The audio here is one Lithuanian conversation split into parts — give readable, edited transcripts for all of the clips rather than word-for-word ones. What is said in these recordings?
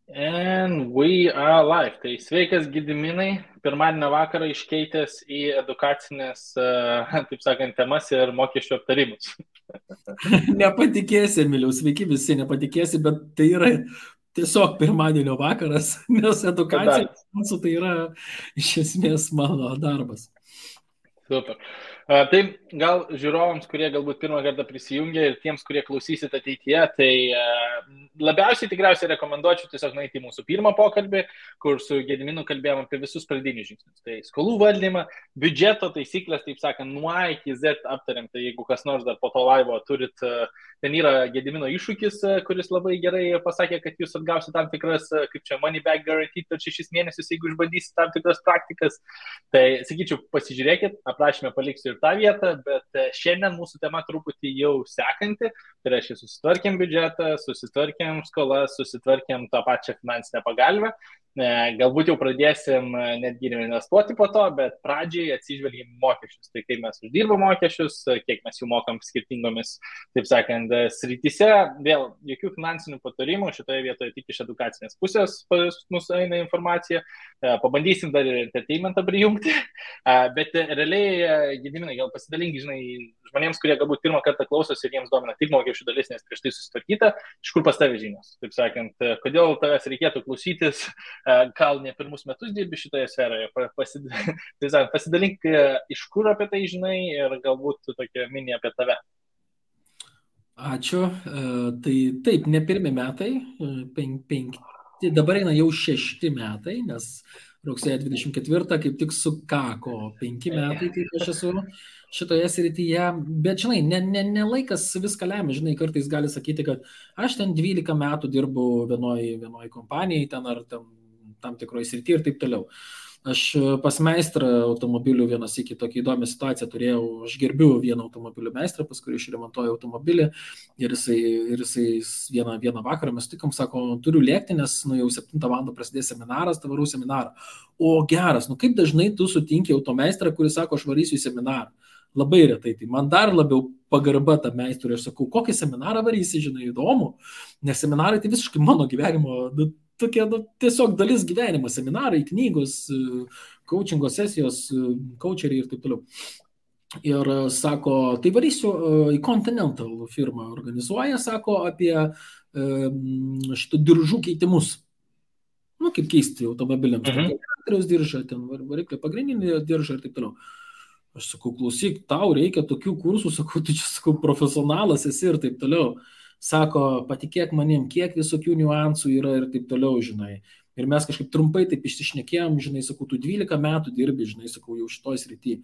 And we are live. Tai sveikas Gediminai, pirmadienio vakarą iškeitęs į edukacinės, taip sakant, temas ir mokesčių aptarimus. Nepatikėsi, Emiliau, sveiki visi, nepatikėsi, bet tai yra tiesiog pirmadienio vakaras, nes edukacija tai yra iš esmės mano darbas. Super. Tai gal žiūrovams, kurie galbūt pirmą kartą prisijungia ir tiems, kurie klausysit ateityje, tai labiausiai tikriausiai rekomenduočiau tiesiog nueiti į mūsų pirmą pokalbį, kur su Gediminu kalbėjom apie visus pradinius žingsnius. Tai skolų valdymą, biudžeto taisyklės, taip sakant, nuo A iki Z aptariam. Tai jeigu kas nors dar po to laivo turit, ten yra Gedimino iššūkis, kuris labai gerai pasakė, kad jūs atgausite tam tikras, kaip čia, money back guarantee per 6 mėnesius, jeigu išbandysite tam tikras praktikas. Tai sakyčiau, pasižiūrėkit, aprašymę paliksiu ir tą vietą, bet šiandien mūsų tema truputį jau sekanti. Tai reiškia, susitvarkėm biudžetą, susitvarkėm skolas, susitvarkėm tą pačią finansinę pagalbę. Galbūt jau pradėsim netgi investuoti po to, bet pradžiai atsižvelgim mokesčius. Tai kaip mes uždirbam mokesčius, kiek mes jų mokam skirtingomis, taip sakant, srityse. Vėl jokių finansinių patarimų, šitoje vietoje tik iš edukacinės pusės pas mus eina informacija. Pabandysim dar ir entertainmentą prijungti, bet realiai, Gediminai, gal pasidalink, žinai, žmonėms, kurie galbūt pirmą kartą klausosi ir jiems domina tik mokesčių dalis, nes prieš tai susitvarkyta, iš kur pas tave žinios. Taip sakant, kodėl tavęs reikėtų klausytis, gal ne pirmus metus dirbi šitoje sferoje, pasidalink, iš kur apie tai žinai ir galbūt tokia mini apie tave. Ačiū. Tai taip, ne pirmi metai, dabar eina jau 6 metai, nes rugsėjo 24 kaip tik sukako 5 metai, kaip aš esu šitoje srityje, bet žinai, ne laikas viską lemia, žinai, kartais gali sakyti, kad aš ten 12 metų dirbu vienoj kompanijai, ten ar tam tikroje srityje ir taip toliau. Aš pas meistrą automobilių vienas iki tokia įdomią situaciją turėjau, aš gerbiu vieną automobilių meistrą, pas kurį išremontuoju automobilį ir jisai vieną vakarą mes tikom, sako, turiu lėkti, nes jau 7 val. Prasidės seminaras, tai varau seminarą. O geras, kaip dažnai tu sutinki automeistrą, kuris sako, aš varysiu į seminarą. Labai retai, tai man dar labiau pagarba tą meistrą, aš sakau, kokį seminarą varysi, žinai, įdomu, nes seminarai tai visiškai mano gyvenimo tokia tiesiog dalis gyvenimo, seminarai, knygos, coachingo sesijos, coacheriai ir taip toliau. Ir sako, tai varysiu į Continental firmą organizuoja, sako, apie šitų diržų keitimus. Kaip keisti automobiliams. Traktoriaus diržą, ten variklio pagrindinį diržą ir taip toliau. Aš sakau, klausyk, tau reikia tokių kursų, sakau, tu čia, sakau, profesionalas esi ir taip toliau. Sako, patikėk manim, kiek visokių niuansų yra ir taip toliau, žinai. Ir mes kažkaip trumpai taip išsišnekėjom, žinai, sakau, tu 12 metų dirbi, žinai, sakau, jau šitoj srity.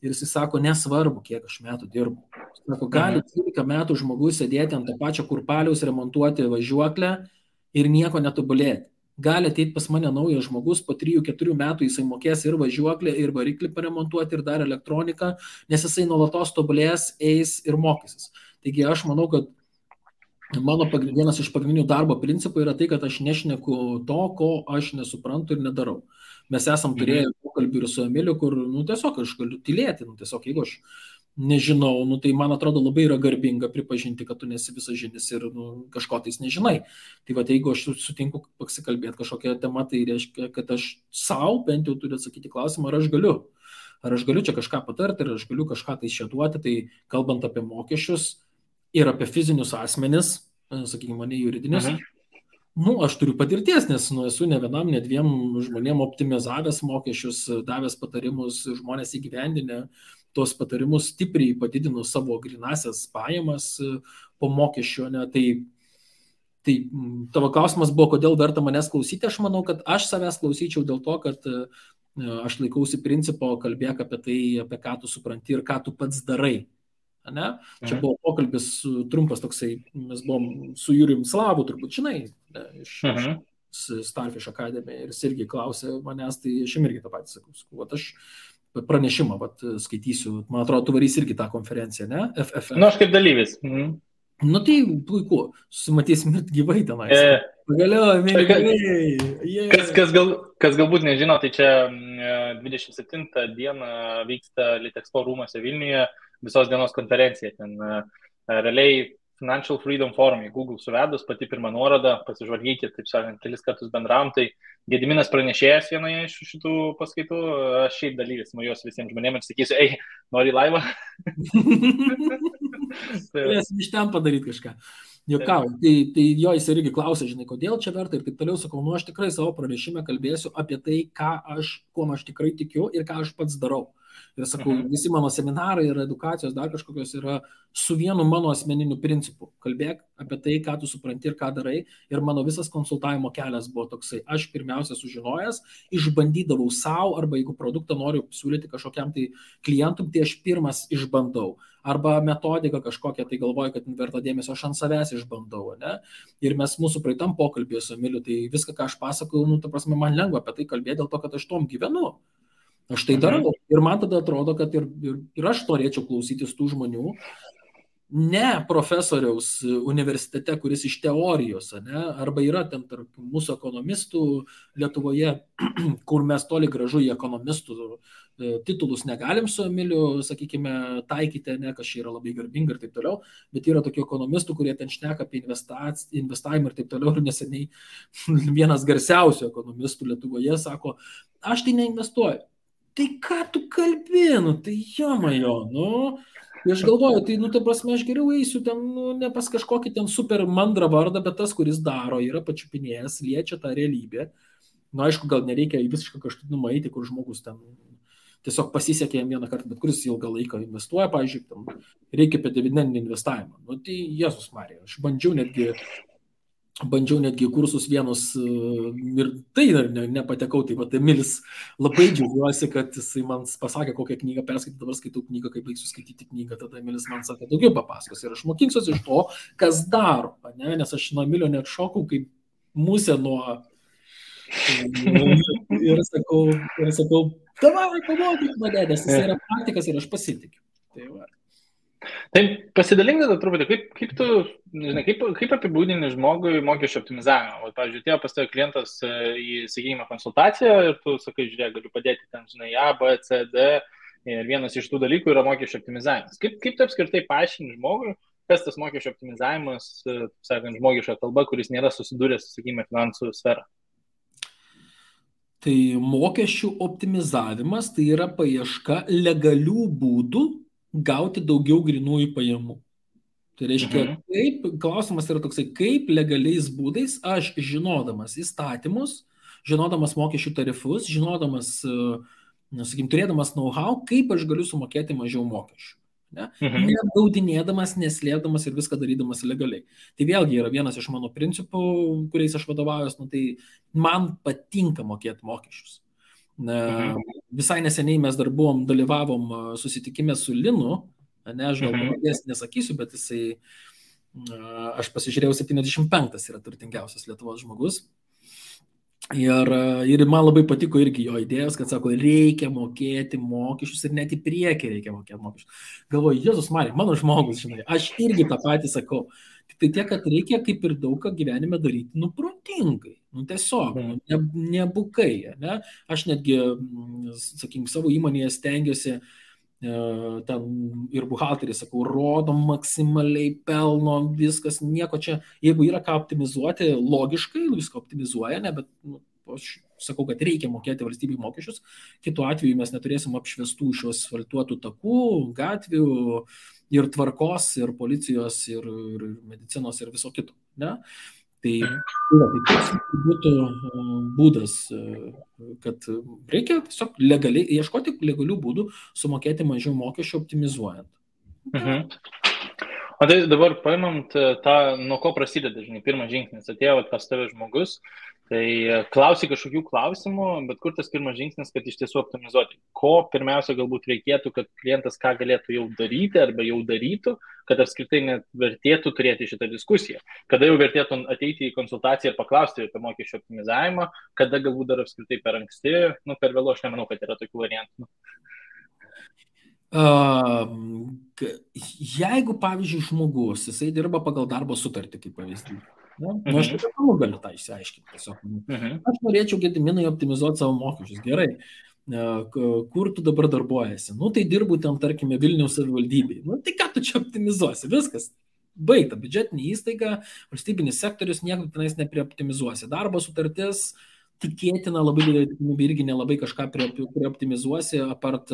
Ir jis sako, nesvarbu, kiek aš metų dirbu. Sako, gali 12 metų žmogus sėdėti ant to pačio kurpaliaus, remontuoti važiuoklę ir nieko netobulėti. Gali ateiti pas mane naujas žmogus, po 3-4 metų jisai mokės ir važiuoklę, ir variklį paremontuoti, ir dar elektroniką, nes jisai nuolatos tobulės, eis ir mokysis. Taigi aš manau, kad mano vienas iš pagrindinių darbo principų yra tai, kad aš nešneku to, ko aš nesuprantu ir nedarau. Mes esam turėję pokalbį ir su Emiliu, kur, tiesiog aš galiu tylėti, tiesiog jeigu aš nežinau, tai man atrodo labai yra garbinga pripažinti, kad tu nesi visažinis ir kažko tais nežinai. Tai va, jeigu aš sutinku pasikalbėti kažkokią temą, tai reiškia, kad aš savo bent jau turiu atsakyti klausimą, ar aš galiu čia kažką patarti, ar aš galiu kažką tai šėduoti, tai kalbant apie mokesčius ir apie fizinius asmenis, sakykime, ne juridinius, aš turiu patirties, nes esu ne vienam, ne 2 žmonėm optimizavęs mokesčius, davęs patarimus, žmonės įgyvendinę tos patarimus, stipriai padidino savo grinasias pajamas po mokesčio. Tai tavo klausimas buvo, kodėl verta manęs klausyti. Aš manau, kad aš savęs klausyčiau dėl to, kad aš laikausi principo, kalbėk apie tai, apie ką tu supranti ir ką tu pats darai. Ne? Čia buvo pokalbis trumpas toksai, mes buvom su Jurijum Slavu, turbūt žinai, iš Starfish Academy, ir jis irgi klausė manęs, tai aš irgi tą patį sakau, aš pranešimą skaitysiu, man atrodo, tu varys irgi tą konferenciją, ne? FFF. Aš kaip dalyvis. Tai puiku, susimatysim ir gyvai tenais. Pagaliau, mėlygai. Kas galbūt nežino, tai čia 27 dieną vyksta Litexpo rūmuose Vilniuje visos dienos konferencija. Ten realiai Financial Freedom Forum, į Google suvedus, pati pirma nuoroda, pasižvalgykit, taip sakant, kelis kartus bendravom, tai Gediminas pranešėjas vienoje iš šitų paskaitų, aš šiaip dalyvis nuėjus visiems žmonėms ir sakysiu, ei, nori laivą? Turėsim iš ten padaryti kažką. Jokau, tai jo jis irgi klausė, žinai, kodėl čia verta ir taip toliau, sakau, nu aš tikrai savo pranešime kalbėsiu apie tai, kuo aš tikrai tikiu ir ką aš pats darau. Ir sakau, visi mano seminarai ir edukacijos dar kažkokios yra su vienu mano asmeniniu principu. Kalbėk apie tai, ką tu supranti ir ką darai. Ir mano visas konsultavimo kelias buvo toksai. Aš pirmiausia sužinojęs, išbandydavau savo, arba jeigu produktą noriu siūlyti kažkokiam tai klientui, tai aš pirmas išbandau. Arba metodiką kažkokią, tai galvoju, kad verta dėmesio, aš ant savęs išbandau. Ne? Ir mes mūsų praeitam pokalbėje su Emiliu, tai viską, ką aš pasakau, nu, ta prasme, man lengva apie tai kalbėti dėl to, kad aš tom gyvenu. Aš tai darau. Ir man tada atrodo, kad ir aš norėčiau klausytis tų žmonių, ne profesoriaus universitete, kuris iš teorijos, ne? Arba yra ten tarp mūsų ekonomistų Lietuvoje, kur mes toli gražu į ekonomistų titulus negalim su Emiliu, sakykime, taikyti, ne, kas čia yra labai garbinga ir taip toliau, bet yra tokių ekonomistų, kurie ten šneka apie investavimą ir taip toliau, ir neseniai vienas garsiausių ekonomistų Lietuvoje sako, aš tai neinvestuoju. Tai ką tu kalbėnu, tai jomajo, nu, aš galvoju, tai, nu, ta prasme, aš geriau eisiu ten, nu, ne pas kažkokį ten super mandrą vardą, bet tas, kuris daro, yra pačiupinėjęs, liečia tą realybę. Nu, aišku, gal nereikia į visišką kažkatinumą eiti, kur žmogus ten tiesiog pasisekė jam vieną kartą, bet kuris ilgą laiką investuoja, pavyzdžiui, tam reikia apie dividendinį investavimą. Nu, tai Jėzus Marija, aš bandžiau netgi kursus vienus ir tai nepatekau, tai vat Emilis labai džiaugiuosi, kad jisai man pasakė, kokią knygą perskaityti, dabar skaitau knygą, kaip baigsiu skaityti knygą, tada Emilis man sakė, daugiau papasakos ir aš mokinsiuosi iš to, kas daro, ne? Nes aš nuo Emilio net šokau, kaip musė nuo ir sakau, davai, pamokyk mane, nes jis yra praktikas ir aš pasitikiu. Tai va. Tai pasidalink tada truputį, kaip tu, žinai, kaip apibūdini žmogui mokesčių optimizavimą. O, pavyzdžiui, atėjo pas tave klientas į, sakykime, konsultaciją ir tu sakai, žiūrėk, galiu padėti ten, žinai, A, B, C, D ir vienas iš tų dalykų yra mokesčių optimizavimas. Kaip tu apskritai paaiškini žmogui, kas tas mokesčių optimizavimas, sakant, žmogiška kalba, kuris nėra susidūręs, sakykime, finansų sferą? Tai mokesčių optimizavimas tai yra paieška legalių būdų gauti daugiau grinųjų pajamų. Tai reiškia, klausimas yra toksai, kaip legaliais būdais aš žinodamas įstatymus, žinodamas mokesčių tarifus, žinodamas, sakykim, turėdamas know-how, kaip aš galiu sumokėti mažiau mokesčių. Ne? Neapgaudinėdamas, neslėpdamas ir viską darydamas legaliai. Tai vėlgi yra vienas iš mano principų, kuriais aš vadovaujuos, nu, tai man patinka mokėti mokesčius. Visai neseniai mes dar dalyvavom susitikime su Linu, ne, aš gal pavardės nesakysiu, bet jisai, aš pasižiūrėjau, 75 yra turtingiausias Lietuvos žmogus. Ir man labai patiko irgi jo idėjos, kad sako, reikia mokėti mokesčius ir net į priekį reikia mokėti mokesčius. Galvoju, Jėzus Marija, mano žmogus, žinai, aš irgi tą patį sakau. Tik tai tiek, kad reikia kaip ir daug ką gyvenime daryti, nu, protingai, nu, tiesiog, nebukai, ne? Aš netgi, sakykim, savo įmonėje stengiuosi ten ir buhalterį, sakau, rodom maksimaliai pelno, viskas, nieko čia, jeigu yra ką optimizuoti, logiškai, viską optimizuoja, ne, bet nu, aš sakau, kad reikia mokėti valstybei mokesčius, kitu atveju mes neturėsim apšviestų šios asfaltuotų takų, gatvių ir tvarkos, ir policijos, ir medicinos, ir viso kito, ne? Tai būtų būdas, kad reikia tiesiog legaliai, ieškoti legalių būdų sumokėti mažiau mokesčių optimizuojant. O tai dabar paimant tą, nuo ko prasideda, žinai, pirmas žingsnis, atėjo pas tave žmogus, tai klausi kažkokių klausimų, bet kur tas pirmas žingsnis, kad iš tiesų optimizuoti? Ko pirmiausia galbūt reikėtų, kad klientas ką galėtų jau daryti arba jau darytų, kad apskritai net vertėtų turėti šitą diskusiją? Kada jau vertėtų ateiti į konsultaciją ir paklausti apie mokesčių optimizavimą, kada galbūt dar apskritai per anksti, nu per vėlu, aš nemanau, kad yra tokių variantų. Jeigu, pavyzdžiui, žmogus, jisai dirba pagal darbo sutartį, kaip pavyzdys, aš taip galiu tą išsiaiškinti tiesiog. Aš norėčiau, Gediminai, optimizuoti savo mokesčius. Gerai, kur tu dabar darbuojasi? Nu, tai dirbu ten, tarkime, Vilniaus savivaldybėje. Nu, tai ką tu čia optimizuosi? Viskas. baigta. Biudžetinė įstaiga, valstybinis sektorius nieko tenais neprioptimizuosi. Darbo sutartis tikėtina labai didelė tikimybė irgi nelabai kažką prioptimizuosi, apart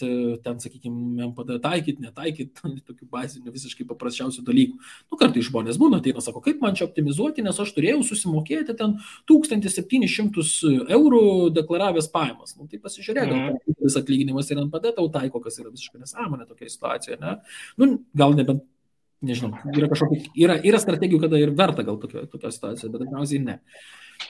ten, sakykime, MPD taikyti, netaikyti, tokių bazinių visiškai paprasčiausių dalykų. Kartais žmonės būna, ateina, sako, kaip man čia optimizuoti, nes aš turėjau susimokėti ten 1700 eurų deklaravęs pajamas. Tai pasižiūrėk, gal vis atlyginimas ir NPD tau taiko, kas yra visiškai nesąmonė tokia situacija, ne? Gal nebent, nežinau, yra strategijų, kada ir verta gal tokia situacija, bet dažniausiai ne.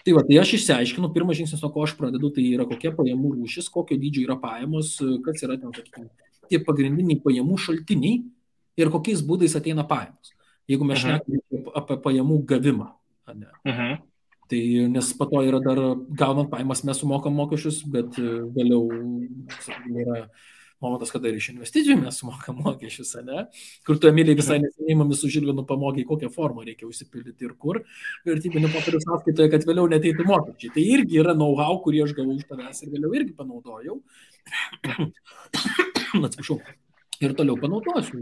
Tai aš išsiaiškinu, pirmas žingsnis, nuo ko aš pradedu, tai yra kokia pajamų rūšis, kokio dydžio yra pajamos, kas yra ten, sakykime, tie pagrindiniai pajamų šaltiniai ir kokiais būdais ateina pajamos. Jeigu mes šnekame apie pajamų gavimą. Tai nes po to yra dar, gaunant pajamas mes sumokam mokesčius, bet vėliau, sakykime, yra momentas, kada ir iš investicijų mes sumokam mokesčius, ne? Kur tu, Emilija, visai neseniai mumis su Žilvinu pamokė, kokią formą reikia užsipildyti ir kur vertybinių popierių sąskaitoje, kad vėliau neteitų mokesčiai. Tai irgi yra know-how, kurį aš gavau iš tavęs ir vėliau irgi panaudojau. Atsiprašau. Ir toliau panaudosiu.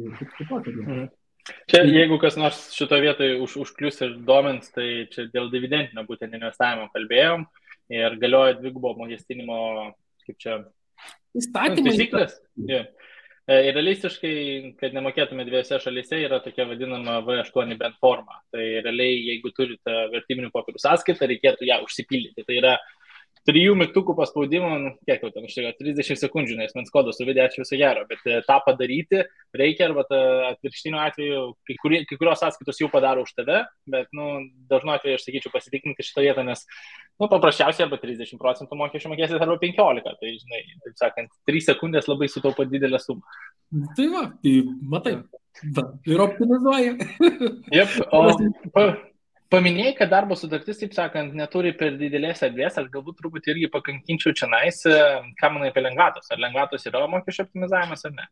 Čia, jeigu kas nors šito vietoje užklius ir domins, tai čia dėl dividendinio būtent investavimo kalbėjom ir galioja dvigubo mokestinimo, kaip čia, taisyklės. Ir realistiškai, kad nemokėtume dviejose šalyse, yra tokia vadinama V8 bent forma. Tai realiai, jeigu turite vertybinių popierių sąskaitą, reikėtų ją užsipildyti. Tai yra 3 mygtukų paspaudimų, kiek jau ten užteko, 30 sekundžių, nes mens kodą suvedė, ačiū viso gero, bet tą padaryti reikia, arba atvirkštiniu atveju, kai kurios sąskaitos jau padaro už tave, bet dažnu atveju aš sakyčiau pasitikrinti šitą vietą, nes paprasčiausiai arba 30% mokesčių mokėsit, arba 15%, tai žinai, taip sakant, 3 sekundės labai sutaupo didelę sumą. Tai matai, ir optimizuoja. Paminėjai, kad darbo sutartis, taip sakant, neturi per didelės erdvės, aš galbūt truputį irgi pakankinčiau čia nais, ką manai apie lengvatos. Ar lengvatos yra mokesčio optimizavimas ar ne?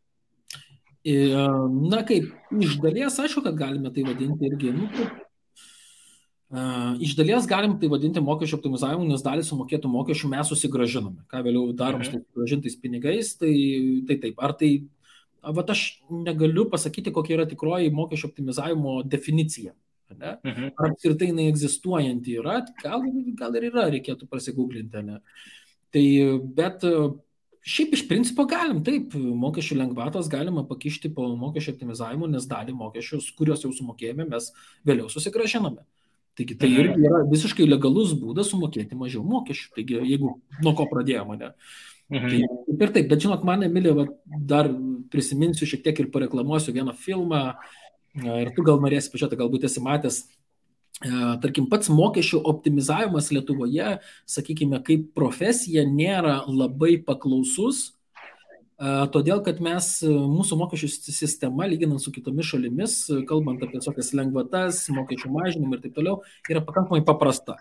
Kaip, iš dalies, aišku, kad galime tai vadinti irgi. Iš dalies galim tai vadinti mokesčio optimizavimu, nes dalį sumokėtų mokesčių mes susigražiname. Ką vėliau darom su susigražintais pinigais, tai taip. Ar tai, aš negaliu pasakyti, kokia yra tikroji mokesčio optimizavimo definicija. Ar apskritai jinai egzistuojanti yra, gal ir yra, reikėtų prasigūglinti, ne? Tai, bet šiaip iš principo galim, taip, mokesčių lengvatos galima pakišti po mokesčio optimizavimu, nes dalį mokesčius, kuriuos jau sumokėjome, mes vėliau susigražiname. Taigi tai irgi yra visiškai legalus būdas sumokėti mažiau mokesčių, taigi jeigu nuo ko pradėjome, ne? Tai, ir taip, bet žinot, man, Emilija, dar prisiminsiu šiek tiek ir pareklamuosiu vieną filmą. Ir tu gal norėsi pažiūrėti, galbūt esi matęs, tarkim, pats mokesčių optimizavimas Lietuvoje, sakykime, kaip profesija nėra labai paklausus, todėl, kad mūsų mokesčių sistema, lyginant su kitomis šalimis, kalbant apie tokias lengvatas, mokesčių mažinimą ir taip toliau, yra pakankamai paprasta.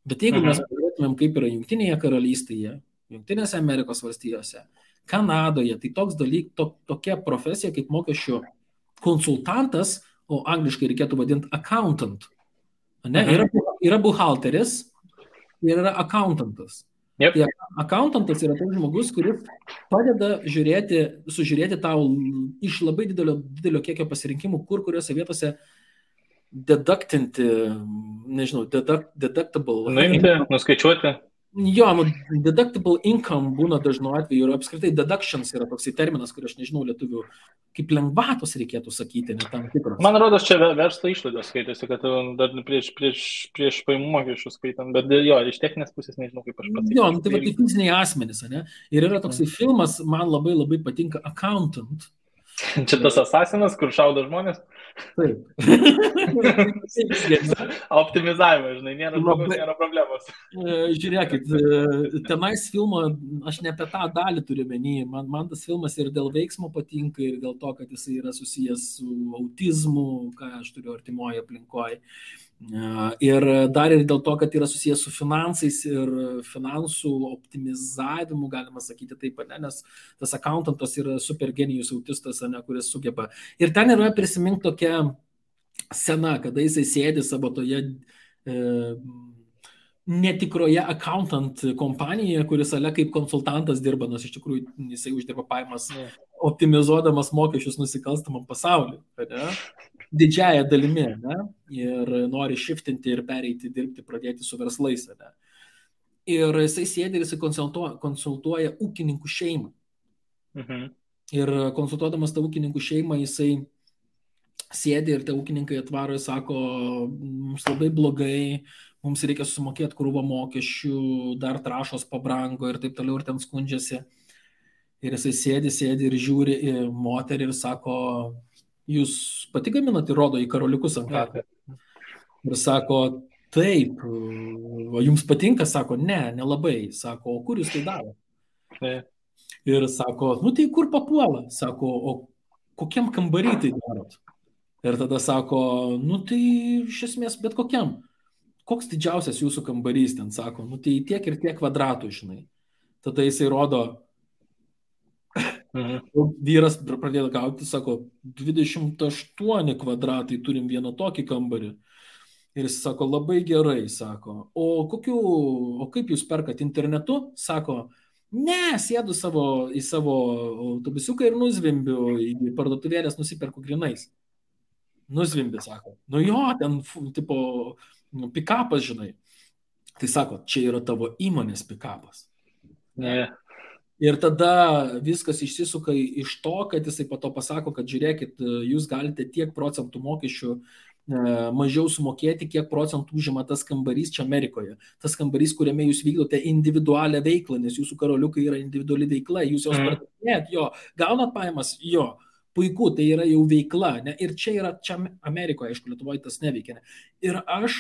Bet jeigu mes pažiūrėtumėm, kaip yra Jungtinėje karalystėje, Jungtinėse Amerikos valstijose, Kanadoje, tai tokia profesija kaip mokesčių konsultantas, o angliškai reikėtų vadinti accountant. Yra buhalteris ir yra accountantas. Yep. Tai accountantas yra toks žmogus, kuris padeda sužiūrėti tau iš labai didelio kiekio pasirinkimų, kuriuose vietose deductinti, nežinau, deductible. Nuimti, nuskaičiuoti. Jo, deductible income būna dažnu atveju ir apskritai deductions yra toksai terminas, kurį aš nežinau lietuvių, kaip lengvatos reikėtų sakyti, ne tam tikros. Man rodos, čia verslo išlaidos skaitėsi, kad dar prieš pajamų mokesčių skaitant, bet jo, iš techninės pusės nežinau, kaip aš pats. Jo, tai va, tai fiziniai asmenys, ne? Ir yra toksai filmas, man labai patinka, Accountant. Čia tas asasinas, kur šaudo žmonės? Taip. Optimizavimą, žinai, nėra problemos. Žiūrėkit, tenais filmo, aš ne apie tą dalį turiu menį, man tas filmas ir dėl veiksmo patinka, ir dėl to, kad jisai yra susijęs su autizmu, ką aš turiu artimoje aplinkoje. Ir dar ir dėl to, kad yra susijęs su finansais ir finansų optimizavimu, galima sakyti taip, ne? Nes tas accountantas yra super genijus autistas, ne, kuris sugeba. Ir ten yra prisimink tokia scena, kada jisai sėdi savo toje netikroje accountant kompanijoje, kuris ale kaip konsultantas dirba, nors iš tikrųjų jisai uždirba pajamas optimizuodamas mokesčius nusikalstamam pasauliu, ne? Didžiąją dalimi, ne? Ir nori shiftinti ir pereiti dirbti, pradėti su verslais, ne? Ir jisai sėdi ir jisai konsultuoja ūkininkų šeimą. Ir konsultuodamas tą ūkininkų šeimą, jisai sėdi ir tie ūkininkai atvaro ir sako, mums labai blogai, mums reikia sumokėti krūvą mokesčių, dar trąšos pabrango ir taip toliau, ir ten skundžiasi. Ir jisai sėdi ir žiūri į moterį ir sako, jūs pati gaminat, ir rodo į karoliukus ant kaklo. Ir sako, taip, o jums patinka? Sako, ne, nelabai. Sako, o kur jūs tai daro? Ir sako, nu tai kur papuola? Sako, o kokiam kambarį tai darot? Ir tada sako, nu tai iš esmės bet kokiam. Koks didžiausias jūsų kambarys ten? Sako, nu tai tiek ir tiek kvadratų, žinai. Tada jisai rodo, vyras pradėjo gauti, sako, 28 kvadratai, turim vieną tokį kambarį. Ir jis sako, labai gerai, sako, o kaip jūs perkat internetu? Sako, ne, sėdu į savo autobusiuką ir nuzvimbiu, į parduotuvėlės nusiperku grinais. Nuzvimbi, sako, nu jo, ten, tipo, pikapas, žinai. Tai sako, čia yra tavo įmonės pikapas. Ne. Ir tada viskas išsisuka iš to, kad jisai po to pasako, kad žiūrėkit, jūs galite tiek procentų mokesčių mažiau sumokėti, kiek procentų užima tas kambarys čia Amerikoje. Tas kambarys, kuriame jūs vykdote individualią veiklą, nes jūsų karoliukai yra individuali veikla, jūs jos pardavinėjat, jo, gaunat pajamas, jo, puiku, tai yra jau veikla, ne? Ir čia Amerikoje, aišku, Lietuvoje tas neveikia. Ne? Ir aš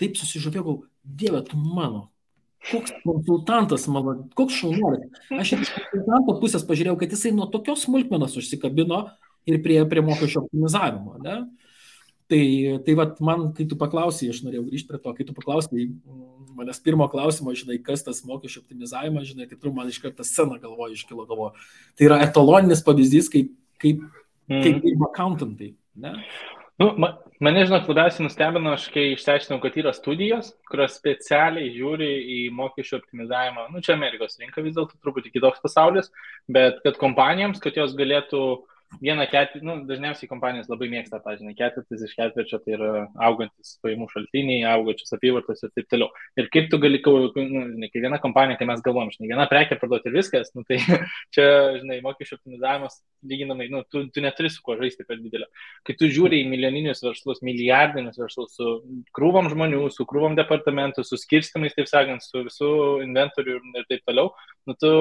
taip susižavėjau, Dieve, tu mano, koks konsultantas mano, koks šaunuolis. Aš iš konsultanto pusės pažiūrėjau, kad jisai nuo tokios smulkmenos užsikabino ir prie mokesčio optimizavimo, ne? Tai vat man, kai tu paklausai, aš norėjau grįžti prie to, kai tu paklausai manęs pirmo klausimo, žinai, kas tas mokesčio optimizavimas, žinai, tai tu man iš karto sceną iškilo galvoje. Tai yra etaloninis pavyzdys, kaip accountantai, ne? Nu, mane, žinot, labiausiai nustebino, aš kai išsiaiškinau, kad yra studijos, kurios specialiai žiūri į mokesčio optimizavimą. Nu, čia Amerikos rinka vis dėlto truputį kitoks pasaulis, bet kad kompanijoms, kad jos galėtų vieną ketvirtį, nu, dažniausiai kompanijos labai mėgsta tą, žinai, ketvirtis iš ketvirčio, tai yra augantis pajamų šaltiniai, augančios apyvartos ir taip toliau. Ir kaip tu gali, žinai, kai viena kompanija, kai mes galvom, žinai, viena prekė parduoti ir viskas, nu, tai čia, žinai, mokesčio optimizavimas lyginamai, nu, tu neturi su kuo žaisti per didelio. Kai tu žiūri į milijoninius verslus, milijardinius verslus, su krūvom žmonių, su krūvom departamentų, su skirstimais, taip sakant, su visų inventorių ir taip toliau, nu, tu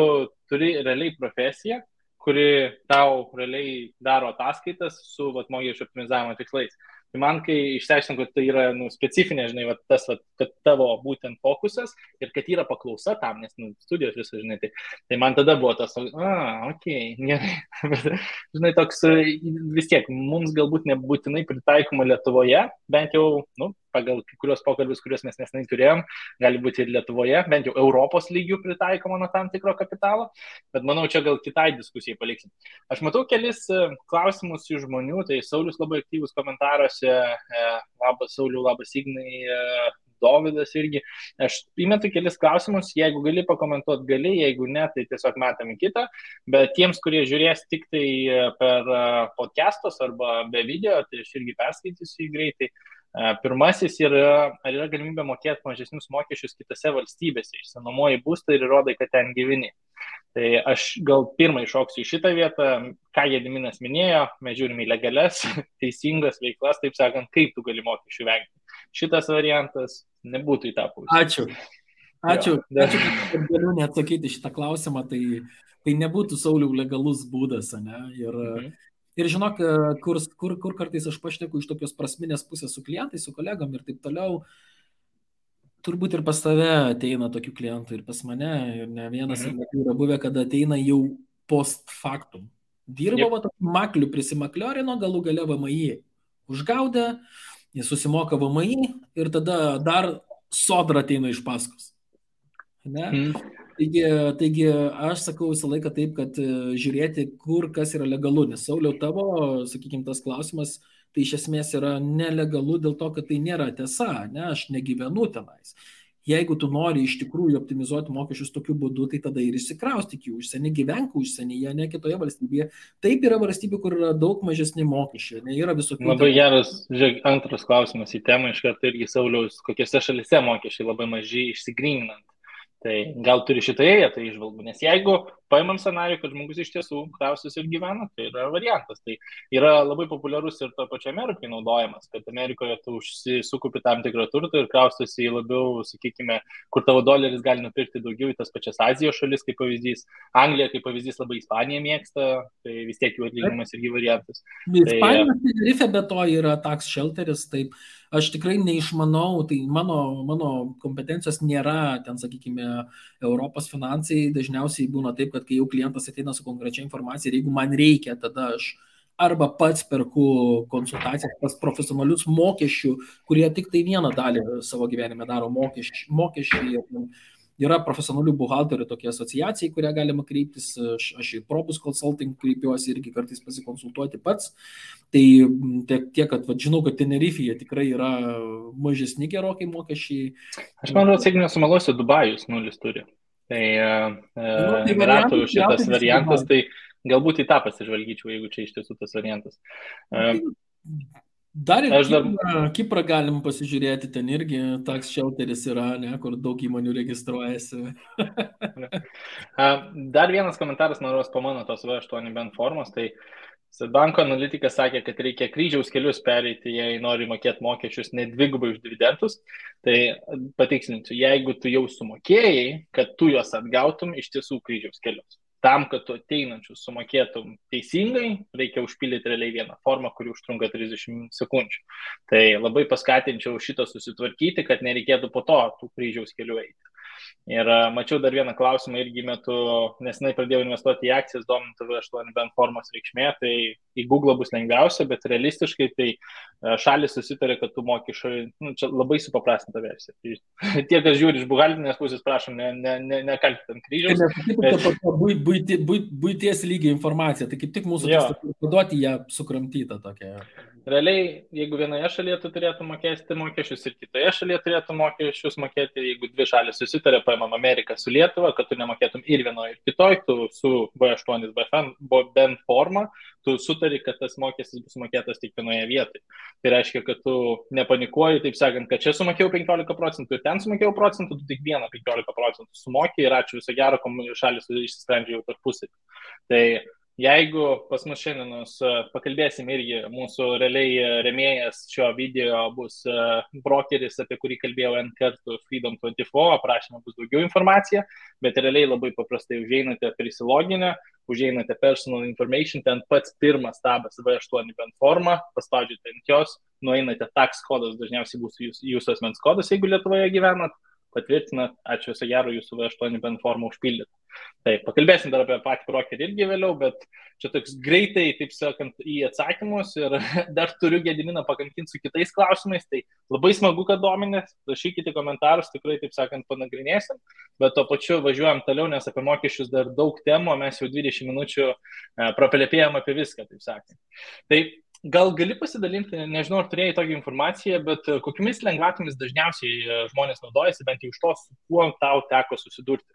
turi realiai profesiją, kuri tau realiai daro ataskaitas su mokesčio optimizavimo tikslais. Tai man, kai išsiaiškinau, kad tai yra specifinė, žinai, tas, kad tavo būtent fokusas ir kad yra paklausa tam, nes studijos viso, žinai, tai man tada buvo tas, okei, gerai. Žinai, toks vis tiek, mums galbūt nebūtinai pritaikoma Lietuvoje, bent jau, pagal kai kurios pokalbius, kuriuos mes nesenai turėjom, gali būti ir Lietuvoje, bent jau Europos lygių pritaikoma nuo tam tikro kapitalo, bet manau, čia gal kitai diskusijai paliksim. Aš matau kelis klausimus iš žmonių, tai Saulius labai aktyvus komentaruose, labas Sauliu, labas Ignai, Dovydas irgi. Aš įmetu kelis klausimus, jeigu gali pakomentuoti, gali, jeigu ne, tai tiesiog metam į kitą, bet tiems, kurie žiūrės tik tai per podcastos arba be video, tai aš irgi perskaitysiu jį greitai. Pirmasis yra, ar yra galimybė mokėti mažesnius mokesčius kitose valstybėse, išsinuomoji būstą ir įrodai, kad ten gyveni. Tai aš gal pirmą iššoksiu į šitą vietą, ką Gediminas minėjo, mes žiūrime į legalias, teisingas veiklas, taip sakant, kaip tu gali mokesčių vengti. Šitas variantas nebūtų į tą pusę. Ačiū, kad galiu neatsakyti šitą klausimą, tai nebūtų Sauliau legalus būdas, ne? Ir žinok, kur kartais aš pašneku iš tokios prasminės pusės su klientais, su kolegom ir taip toliau, turbūt ir pas tave ateina tokių klientų ir pas mane, ir ne vienas ir yra buvę, kad ateina jau post factum. Dirbo maklių, prisimakliorino, galų gale VMI užgaudė, jis susimoka VMI ir tada dar Sodra ateina iš paskos. Ne? Taigi aš sakau visą laiką taip, kad žiūrėti, kur kas yra legalu, nes Sauliau tavo, sakykime, tas klausimas, tai iš esmės yra nelegalu dėl to, kad tai nėra tiesa, ne, aš negyvenu tenais. jeigu tu nori iš tikrųjų optimizuoti mokesčius tokiu būdu, tai tada ir išsikraustyk į užsienį, gyvenk užsienyje, ne kitoje valstybėje. Taip yra valstybė, kur yra daug mažesni mokesčiai, ne yra visokių. Labai geras, žiūrėk, antras klausimas į temą, iš karto irgi Sauliaus, kokiose šalise mokesčiai labai maži išsigryninant. Tai gal turi šitoje vietoje išvalgų, nes jeigu paimam scenarijų, kad žmogus iš tiesų krausis ir gyvena, tai yra variantas. Tai yra labai populiarus ir to pačio Amerikai naudojamas, kad Amerikoje tu sukupi tam tikrą turtą ir kraustosi į labiau, sakykime, kur tavo doleris gali nupirkti daugiau į tas pačias Azijos šalis, kaip pavyzdys. Anglija, kaip pavyzdys, labai Ispanija mėgsta, tai vis tiek jų atlyginimas irgi variantas. Ispanijos Tenerife be to yra tax shelteris, taip. Aš tikrai neišmanau, tai mano kompetencijos nėra, ten, sakykime, Europos finansai. Dažniausiai būna taip, kad kai jau klientas ateina su konkrečia informacija ir jeigu man reikia, tada aš arba pats perku konsultacijas pas profesionalius mokesčių, kurie tik tai vieną dalį savo gyvenime daro mokesčiai. Yra profesionalių buhalterių tokia asociacija, kurią galima kreiptis, aš į Probus Consulting kreipiuosi irgi kartais pasikonsultuoti pats. Tai tiek, kad žinau, kad Tenerife'je tikrai yra mažesni gerokai mokesčiai. Aš manau, jeigu nesumeluosiu, Dubajus nulis turi. Tai Emiratų šitas variantas, tai galbūt į tą pasižvalgyčiau, jeigu čia iš tiesų tas variantas. Dar ir Kiprą galim pasižiūrėti, ten irgi tax shelteris yra, ne, kur daug įmonių registruojasi. Dar vienas komentaras, noros po mano tos V8 bent formos, tai banko analitikas sakė, kad reikia kryžiaus kelius pereiti, jei nori mokėti mokesčius ne dvigubai už dividendus. Tai patikslinsiu, jeigu tu jau sumokėjai, kad tu juos atgautum, iš tiesų kryžiaus kelius. Tam, kad tu ateinančius sumokėtum teisingai, reikia užpildyti realiai vieną formą, kuri užtrunka 30 sekundžių. Tai labai paskatinčiau šitą susitvarkyti, kad nereikėtų po to tų kryžiaus kelių eiti. Ir mačiau dar vieną klausimą irgi metu, nesenai pradėjau investuoti į akcijas, dominant V8 bent formos reikšmė, tai į Google bus lengviausia, bet realistiškai tai šalis susitarė, kad tu mokesčiai, čia labai supaprastinta versija. Tai tie, kas žiūri iš buhaltinės pusės, prašom, nekalti ant kryžiaus. Buities lygio informacija, tai kaip tik mūsų tikslas paduoti ją sukramtytą tokią. Realiai, jeigu vienoje šalyje tu turėtų mokėti mokesčius ir kitoje šalyje turėtų mokesčius mokėti, jeigu dvi šalis susitarė, paimam Ameriką su Lietuva, kad tu nemokėtum ir vienoje ir kitoje, tu su V8 bent forma, tu sutari, kad tas mokestis bus mokėtas tik vienoje vietoje. Tai reiškia, kad tu nepanikuoji, taip sakant, kad čia sumokėjau 15% ir ten sumokėjau procentų, tu tik 15% sumokėjai ir ačiū, viso gero, šalis išsisprendžia jau tarpusavy. Tai jeigu pas mus šiandien pakalbėsim irgi, mūsų realiai remėjas šio video bus brokeris, apie kurį kalbėjau N kartų Freedom24, aprašymą bus daugiau informacija, bet realiai labai paprastai užeinate prisiloginę, užeinate personal information, ten pats pirmas tabas V8 bent forma, paspaudžiate ant jos, nueinate tax kodas, dažniausiai bus jūsų asmens kodas, jeigu Lietuvoje gyvenat, patvirtinat, ačiū viso gero, jūsų V8 bent formą užpildyti. Taip, pakalbėsim dar apie patį brokerį irgi vėliau, bet čia toks greitai, taip sakant, į atsakymus ir dar turiu Gediminą pakankinti su kitais klausimais, tai labai smagu, kad dominės, rašykite komentarus, tikrai, taip sakant, panagrinėsim, bet to pačiu važiuojam toliau, nes apie mokesčius dar daug temų, mes jau 20 minučių praplėpėjom apie viską, taip sakant. Tai gal gali pasidalinti, nežinau, ar turėjai tokią informaciją, bet kokiamis lengvatomis dažniausiai žmonės naudojasi, bent jau iš to, su kuo tau teko susidurti?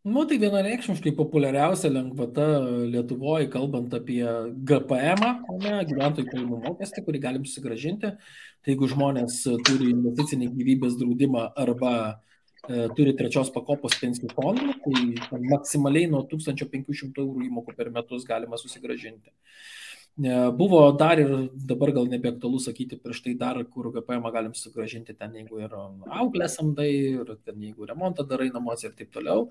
Tai vienareikšmiškai populiariausia lengvata Lietuvoje, kalbant apie GPM, gyventojų pajamų mokestį, kurį galim susigrąžinti. Tai jeigu žmonės turi investicinį gyvybės draudimą arba turi trečios pakopos pensijų fondų, tai maksimaliai nuo 1500 eurų įmokų per metus galima susigrąžinti. Buvo dar ir dabar gal nebeaktualu sakyti prieš tai dar, kur GPM galim sugrąžinti ten, jeigu ir auklę samdai, ir ten, jeigu remontą darai namuose ir taip toliau.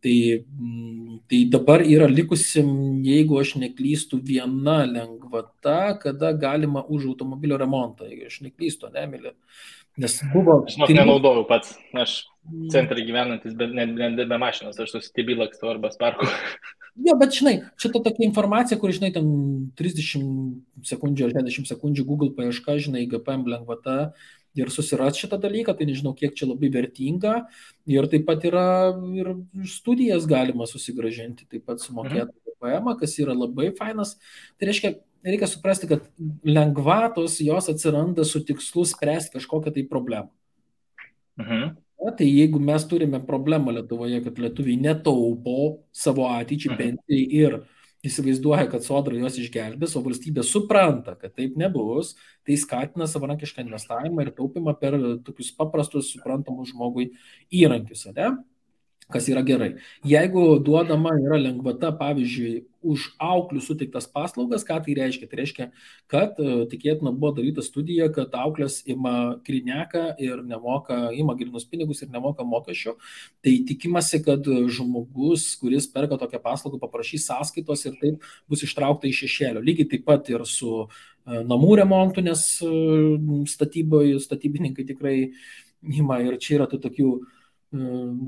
Tai dabar yra likusi, jeigu aš neklystu, viena lengvata, kada galima už automobilio remontą, jeigu aš neklystu, Emilė. Nes buvo... Aš nenaudojau pats, aš centrai gyvenantis, bet ne be mašinos, aš susitibį lakstu arba sparku. Jo, bet žinai, šita tokia informacija, kur, žinai, ten 30 sekundžių ar 60 sekundžių Google paieška, žinai, GPM lengvata ir susiras šitą dalyką, tai nežinau, kiek čia labai vertinga. Ir taip pat yra ir studijas galima susigrąžinti, taip pat sumokėti GPM, kas yra labai fainas. Tai reikia suprasti, kad lengvatos jos atsiranda su tikslu spręsti kažkokią tai problemą. Mhm. Tai jeigu mes turime problemą Lietuvoje, kad lietuviai netaupo savo ateičiai Mhm. pensijai ir įsivaizduoja, kad sodra juos išgelbės, o valstybė supranta, kad taip nebus, tai skatina savarankišką investavimą ir taupimą per tokius paprastus, suprantamus žmogui įrankius, ne? Kas yra gerai. Jeigu duodama yra lengvata, pavyzdžiui, už auklių suteiktas paslaugas, ką tai reiškia? Tai reiškia, kad tikėtina buvo daryta studija, kad auklės ima krineką ir ima grinus pinigus ir nemoka mokesčių. Tai tikimasi, kad žmogus, kuris perka tokią paslaugą, paprašys sąskaitos ir taip bus ištraukta iš šešėlio. Lygiai taip pat ir su namų remontu, nes statybininkai tikrai ima ir čia yra tų tokių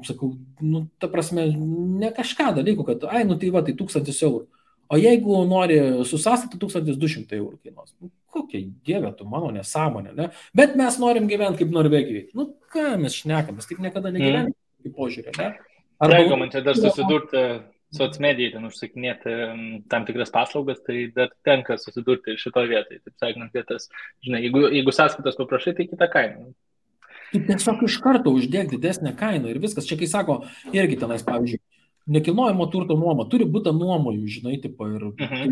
sakau, nu, ta prasme, ne kažką dalykų, kad, tai va, tai 1000 eurų. O jeigu nori su sąstatų, 1200 eurų kainuos. Nu, kokia dievė tu mano nesąmonė, ne? Bet mes norim gyventi kaip Norvegijai. Nu, ką mes šnekam, mes taip niekada negyvenime, kaip požiūrė, ne? Jeigu man čia dar susidurti socmedijai, ten užsakinėti tam tikras paslaugas, tai dar tenka susidurti ir šitoje vietoje. Taip sakant, vietas, žinai, jeigu sąskaitos paprašai, tai kita kaina. Tu tiesiog iš karto uždėk didesnę kainą ir viskas. Čia kai sako, irgi tenais, pavyzdžiui, nekilnojamo turto nuoma, turi būti nuomojų, žinai, tipo, ir tai,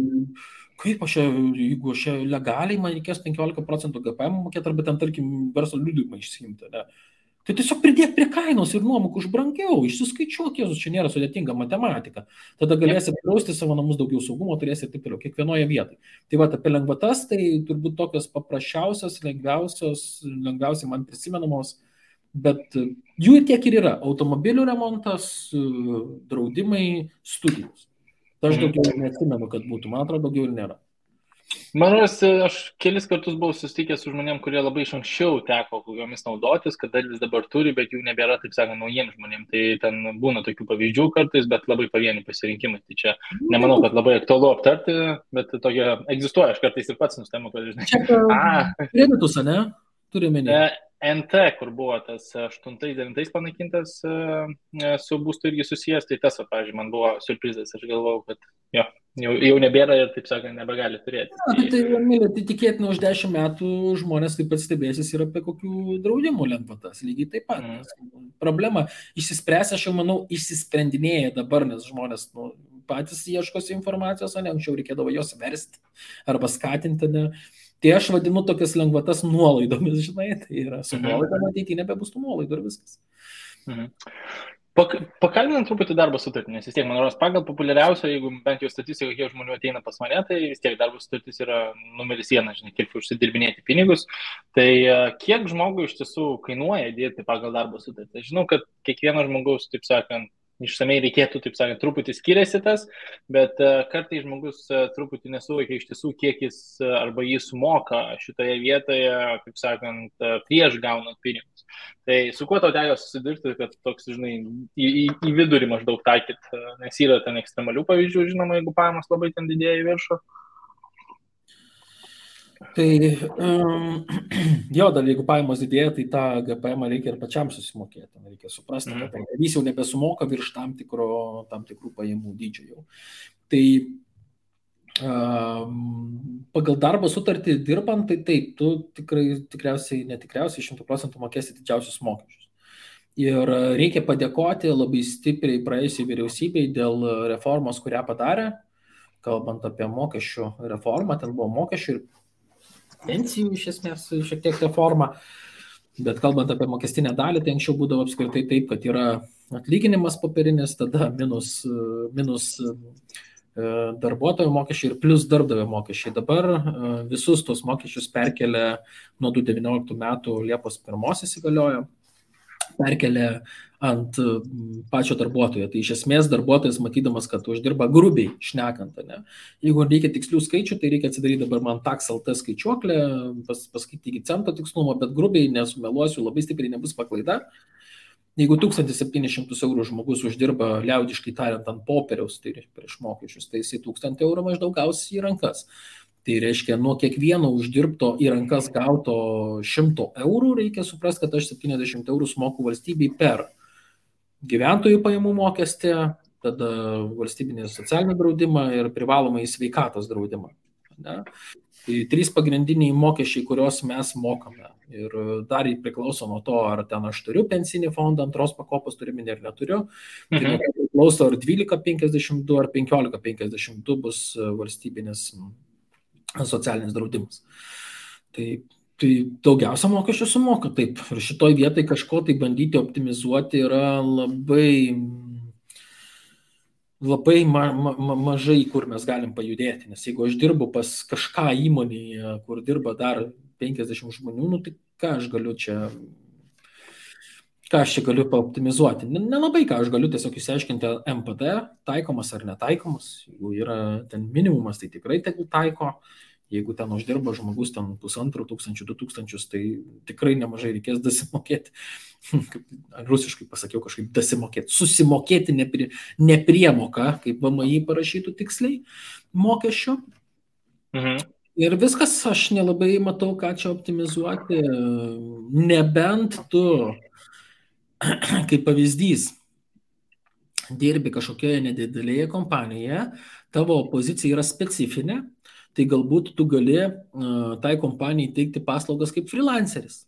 kaip jeigu aš legaliai man reikės 15% GPM mokėti, arba ten, tarkim, verslo liudijimą išsiimti, ne? Tai tiesiog pridėk prie kainos ir nuomok už brangiau, išsiskaičiuok, Jėzus, čia nėra sudėtinga matematika. Tada galėsi drausti savo namus, daugiau saugumo turėsi ir taip toliau, kiekvienoje vietoje. Tai va, apie lengvatas, tai turbūt tokios paprasčiausios, lengviausiai man prisimenamos, bet jų ir tiek ir yra. Automobilių remontas, draudimai, studijos. Tai aš daugiau neatsimenu, kad būtų, man atrodo, daugiau ir nėra. Manau, aš kelis kartus buvau susitikęs su žmonėm, kurie labai iš anksčiau teko jomis naudotis, kad dalis dabar turi, bet jų nebėra, taip sakant, naujiems žmonėm. Tai ten būna tokių pavyzdžių kartais, bet labai pavieni pasirinkimai. Tai čia nemanau, kad labai aktualu aptarti, bet tokia egzistuoja. Aš kartais ir pats nustemu, kad žinai. Kreditus, ne? Turime ne. NT, kur buvo tas 8-9 panaikintas su būstu irgi susijęs, tai tas, pavyzdžiui, man buvo surprizas. Aš galvojau, kad jau nebėra ir, taip sakant, nebegali turėti. Tai tikėtina, už 10 metų žmonės taip pat stebėsis ir apie kokių draudimų lengvatas. Lygiai taip pat. Problema išsispręs, aš jau manau, išsisprendinėja dabar, nes žmonės patys ieškosi informacijos, o ne anksčiau reikėdavo jos versti arba skatinti. Ne? Tai aš vadinu tokias lengvatas nuolaidomis, žinai, tai yra su nuolaidom ateityje nebebus tų nuolaidų ir viskas. Pakalbinant truputį darbo sutartį, nes vis tiek, man rodos, pagal populiariausią, jeigu bent jau statistika, kiek žmonių ateina pas mane, tai vis tiek darbo sutartis yra numeris 1, žinai, kiek užsidirbinėti pinigus. Tai kiek žmogui iš tiesų kainuoja dirbti pagal darbo sutartį? Žinau, kad kiekvieno žmogaus, taip sakant, išsamei reikėtų, taip sakant, truputį skiriasi tas, bet kartais žmogus truputį nesuvokia iš tiesų, kiek jis arba jis sumoka šitoje vietoje, taip sakant, prieš gaunant pinigus. Tai su kuo tau teko susidurti, kad toks, žinai, į vidurį maždaug taikyt, nes yra ten ekstremalių pavyzdžių, žinoma, jeigu pajamos labai ten didėja į viršų? Tai jo, dar jeigu pajamos didėja, tai tą GPM reikia ir pačiam susimokėti. Reikia suprasti, kad jis jau nebesumoka virš tam tikrų pajamų dydžio jau. Tai pagal darbo sutartį dirbant, tai taip, tu tikriausiai 100% mokėsi didžiausius mokesčius. Ir reikia padėkoti labai stipriai praėjusiai vyriausybei dėl reformos, kurią padarė, kalbant apie mokesčių reformą, ten buvo mokesčių ir pensijų iš esmės šiek tiek reforma, bet kalbant apie mokestinę dalį, tai anksčiau būdavo apskritai taip, kad yra atlyginimas popierinis, tada minus darbuotojo mokesčiai ir plus darbdavio mokesčiai. Dabar visus tos mokesčius perkelia nuo 2019 metų Liepos 1 įsigaliojo, perkelia ant pačio darbuotojo. Tai iš esmės darbuotojas, matydamas, kad uždirba grubiai šnekant, ne? Jeigu reikia tikslių skaičių, tai reikia atsidaryti dabar man tax.lt skaičiuoklę, paskaityti iki cento tikslumo, bet grubiai nesumeluosiu, labai stipriai nebus paklaida. Jeigu 1700 eurų žmogus uždirba, liaudiškai tariant, ant popieriaus, tai prieš mokesčius, tai jisai 1000 eurų maždaug gaus į rankas. Tai reiškia, nuo kiekvieno uždirbto į rankas gauto 100 eurų reikia suprasti, kad aš 70 eurų sumoku valstybei per gyventojų pajamų mokestį, tada valstybinį socialinį draudimą ir privalomą į sveikatos draudimą. Ne? Tai 3 pagrindiniai mokesčiai, kuriuos mes mokame. Ir dar priklauso nuo to, ar ten aš turiu pensinį fondą, antros pakopos turimi ir neturiu. Tai nuo to priklauso, ar 12,52 ar 15,52 bus valstybinis socialinis draudimas. Tai daugiausia mokesčių sumoka taip. Ir šitoj vietai kažko tai bandyti optimizuoti yra labai mažai, kur mes galim pajudėti. Nes jeigu aš dirbu pas kažką įmonėje, kur dirba dar 50 žmonių, nu, tai ką aš čia galiu paoptimizuoti? Nelabai ką aš galiu tiesiog išsiaiškinti MPD, taikomas ar netaikomas. Jeigu yra ten minimumas, tai tikrai tegul taiko. Jeigu ten uždirba žmogus ten 1500, 2000, tai tikrai nemažai reikės dasimokėti. Rusiškai pasakiau kažkaip dasimokėti. Susimokėti nepriemoką, kaip VMI parašytų tiksliai, mokesčio. Ir viskas, aš nelabai matau, ką čia optimizuoti. Nebent tu, kaip pavyzdys, dirbi kažkokioje nedidelėje kompanijoje, tavo pozicija yra specifinė, tai galbūt tu gali tai kompanijai teikti paslaugas kaip freelanceris.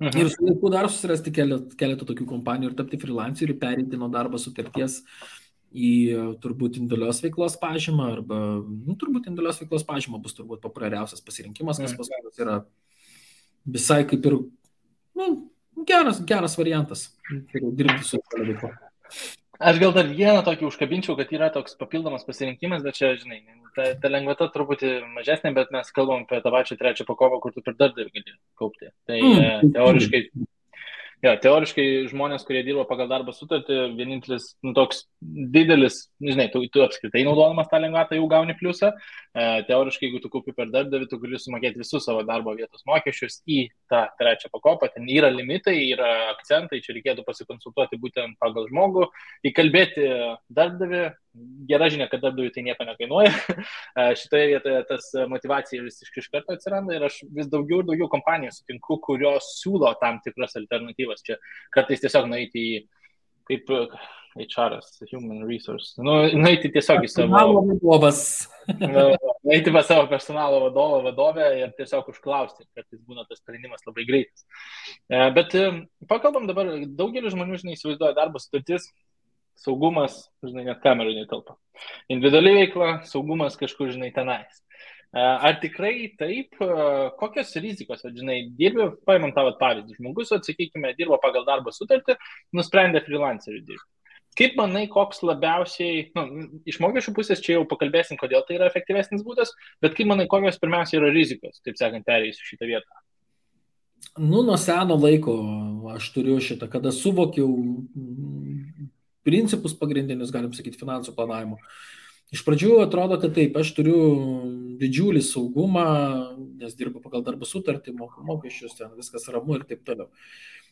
Ir su laiku dar susirasti keletą tokių kompanijų ir tapti freelanceriu, pereiti nuo darbo sutarties į turbūt individualios veiklos pažymą, arba turbūt individualios veiklos pažyma bus turbūt populiariausias pasirinkimas, kas pas mus yra visai kaip ir geras variantas, dirbti su veikla. Aš gal dar vieną tokį užkabinčiau, kad yra toks papildomas pasirinkimas, bet čia, žinai, ta lengvata truputį mažesnė, bet mes kalbam apie tą pačią trečią pakopą, kur tu per darbdavį gali kaupti. Tai teoriškai žmonės, kurie dirba pagal darbo sutartį, vienintelis toks didelis, žinai, tu apskritai naudodamas tą lengvatą jau gauni pliusą. Teoriškai, jeigu tu kaupi per darbdavį, tu gali sumokėti visus savo darbo vietos mokesčius į tą trečią pakopą. Ten yra limitai, yra akcentai, čia reikėtų pasikonsultuoti būtent pagal žmogų, įkalbėti darbdavį. Gera žinia, kad darbdaviui tai nieko nekainuoja. Šitoje vietoje tas motivacija vis iš karto atsiranda ir aš vis daugiau ir daugiau kompanijų sutinku, kurios siūlo tam tikras alternatyvas. Čia kartais tiesiog nueiti į, kaip HR-as, Human Resource, nueiti tiesiog į savo... nueiti pas savo personalo vadovę ir tiesiog užklausti, kartais būna tas sprendimas labai greitas. Bet pakalbam dabar, daugelis žmonių, žinai, įsivaizduoja darbo sutartis, saugumas, žinai, net kamerų netelpa. Individuali veikla, saugumas kažkur, žinai, tenais. Ar tikrai taip, kokios rizikos, žinai, dirbi, paimam tavo pavyzdį, žmogus, atsakykime, dirbo pagal darbo sutartį, nusprendė freelancerių dirbti. Kaip manai, koks labiausiai, iš mokesčių pusės čia jau pakalbėsim, kodėl tai yra efektyvesnis būdas, bet kaip manai, kokios pirmiausia yra rizikos, taip sakant, perėjusiu šitą vietą? Nuo seno laiko aš turiu šitą, kada suvokiau principus pagrindinius, galim sakyti, finansų planavimo. Iš pradžių atrodo, kad taip, aš turiu didžiulį saugumą, nes dirbu pagal darbo sutartį, moku mokesčius, ten viskas ramu ir taip toliau.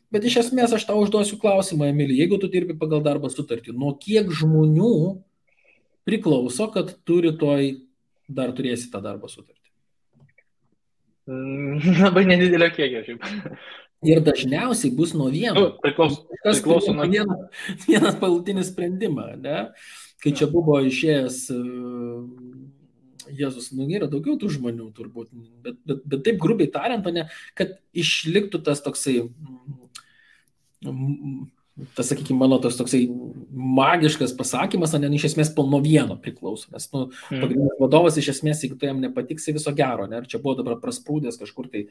Bet iš esmės aš tau užduosiu klausimą, Emilija, jeigu tu dirbi pagal darbo sutartį, nuo kiek žmonių priklauso, kad tu rytoj dar turėsi tą darbo sutartį? Labai nedidelio kiekio, šiaip. Ir dažniausiai bus nuo vieno. Priklauso nuo vienas palutinį sprendimą, ne? Kai čia buvo išėjęs Jėzus, yra daugiau tų žmonių turbūt, bet taip grubiai tariant, ne, kad išliktų tas toksai, sakykime, mano toksai magiškas pasakymas, ne, iš esmės nuo vieno priklauso, nes pagrindinis vadovas iš esmės, jeigu tai jam nepatiksi, viso gero, ne, ir čia buvo dabar prasprūdęs kažkur tai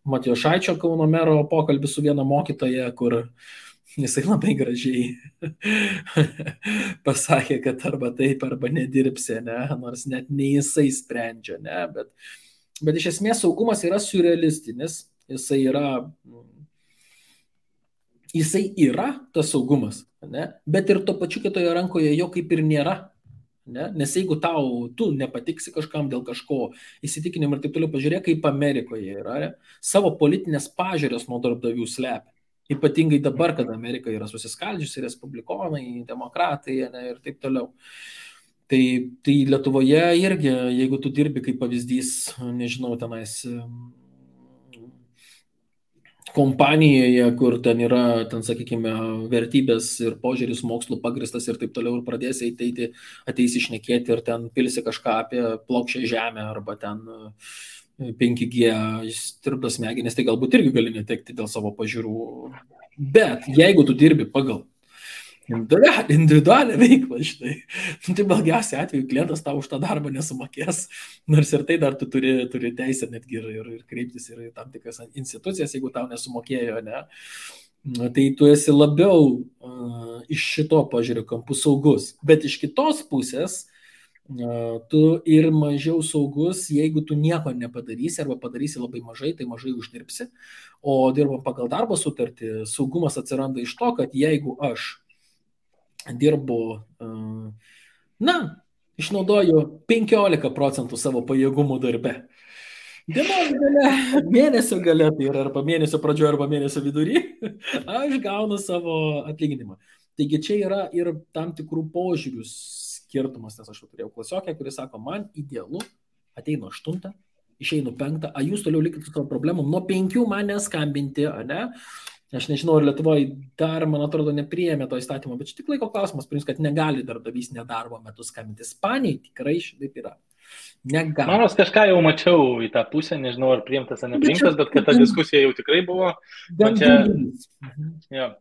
Matijošaičio Kauno mero pokalbis su viena mokytoja, kur jisai labai gražiai pasakė, kad arba taip, arba nedirbsi, ne, nors net ne jisai sprendžia, ne, bet iš esmės saugumas yra surrealistinis, jisai yra tas saugumas, ne, bet ir to pačiu kitoje rankoje jo kaip ir nėra, ne, nes jeigu tu nepatiksi kažkam dėl kažko įsitikinimų ir taip toliau, pažiūrėk, kaip Amerikoje yra, ne, savo politinės pažiūrės nuo darbdavių slepia. Ypatingai dabar, kad Amerika yra susiskaldžiusi, respublikonai, demokratai, ne, ir taip toliau. Tai Lietuvoje irgi, jeigu tu dirbi kaip pavyzdys, nežinau, tenais kompanijoje, kur ten yra, sakykime, vertybės ir požiūris mokslų pagristas ir taip toliau, ir pradėsi ateisi šnekėti ir ten pilsi kažką apie plokščią žemę arba ten 5G tirpdas smegenis, tai galbūt irgi gali netekti dėl savo pažiūrų. Bet jeigu tu dirbi pagal individualią veiklą, štai, tai blogiausia atveju klientas tau už tą darbą nesumokės, nors ir tai dar tu turi teisę netgi ir kreiptis ir tam tikras institucijas, jeigu tau nesumokėjo, ne. Tai tu esi labiau iš šito požiūrio kampų saugus, bet iš kitos pusės tu ir mažiau saugus, jeigu tu nieko nepadarysi arba padarysi labai mažai, tai mažai uždirbsi, o dirbam pagal darbo sutartį, saugumas atsiranda iš to, kad jeigu aš dirbu, išnaudoju 15% savo pajėgumų darbe. Dienos gale, mėnesio gale, tai yra arba mėnesio pradžioje, arba mėnesio vidury, aš gaunu savo atlyginimą. Taigi čia yra ir tam tikrų požiūrių skirtumas, nes aš turėjau klasiokę, kuris sako, man idealu, ateinu 8, išeinu 5, a jūs toliau likite su savo problemom, nuo 5 man neskambinti, ne? Aš nežinau, ar Lietuvoje dar, man atrodo, nepriėmė to įstatymo, bet čia tik laiko klausimas, kad negali darbdavys nedarbo metu skambinti. Ispanijai tikrai šitaip yra. Negali. Manos kažką jau mačiau į tą pusę, nežinau, ar priimtas ar nepriimtas, bet kad ta diskusija jau tikrai buvo.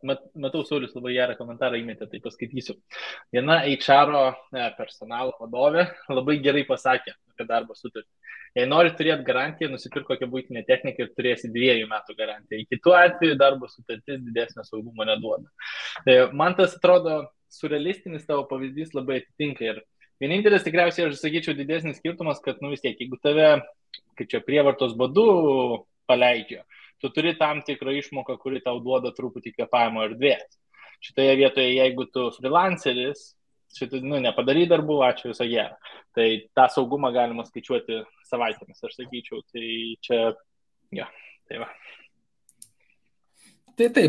Matau, Saulius labai gerą komentarą įmetė, tai paskaitysiu. Viena HR personalo vadovė labai gerai pasakė apie darbo sutartį. Jei nori turėti garantiją, nusipirk kokią buitinę techniką ir turėsi 2 metų garantiją. Į kitų atveju darbo sutartis didesnio saugumo neduoda. Man tas atrodo surrealistinis tavo pavyzdys labai atitinka ir vienintelis tikriausiai, aš sakyčiau, didesnis skirtumas, kad vis tiek, jeigu tave, kaip čia prievartos būdu paleidžia, tu turi tam tikrą išmoką, kuri tau duoda truputį kvėpavimo erdvės. Šitoje vietoje, jeigu tu freelanceris, nepadary darbų, ačiū, viso gero. Tai tą saugumą galima skaičiuoti savaitėmis, aš sakyčiau. Tai čia, tai va. Tai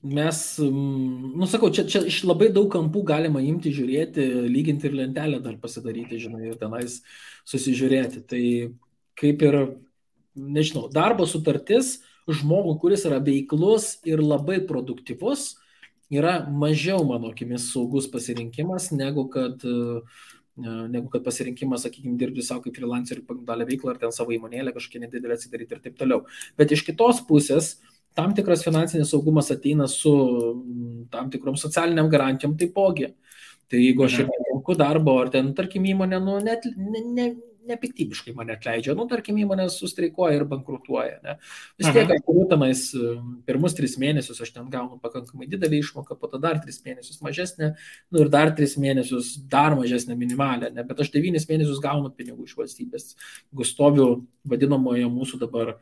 mes, sakau, čia iš labai daug kampų galima imti, žiūrėti, lyginti ir lentelę dar pasidaryti, žinai, ir tenais susižiūrėti. Tai kaip ir, nežinau, darbo sutartis žmogų, kuris yra veiklus ir labai produktyvus, yra mažiau, mano akimis, saugus pasirinkimas, negu kad pasirinkimas, sakykime, dirbti savo kaip freelancerį pagal veiklą ar ten savo įmonėlę kažkokią nedidelę atsidaryti ir taip toliau. Bet iš kitos pusės, tam tikras finansinis saugumas ateina su tam tikrom socialiniam garantijom taipogi. Tai jeigu aš ir netenku darbo, ar ten, tarkim, įmonė, nepiktybiškai mane atleidžia, tarkim, įmonė sustreikuoja ir bankrutuoja, ne? Vis tiek, aš tenais pirmus 3 mėnesius aš ten gaunu pakankamai didelį išmoką, po to dar 3 mėnesius mažesnę, ir dar 3 mėnesius dar mažesnę minimalę, ne? Bet aš 9 mėnesius gaunu pinigų iš valstybės, jeigu stoviu vadinamoje mūsų dabar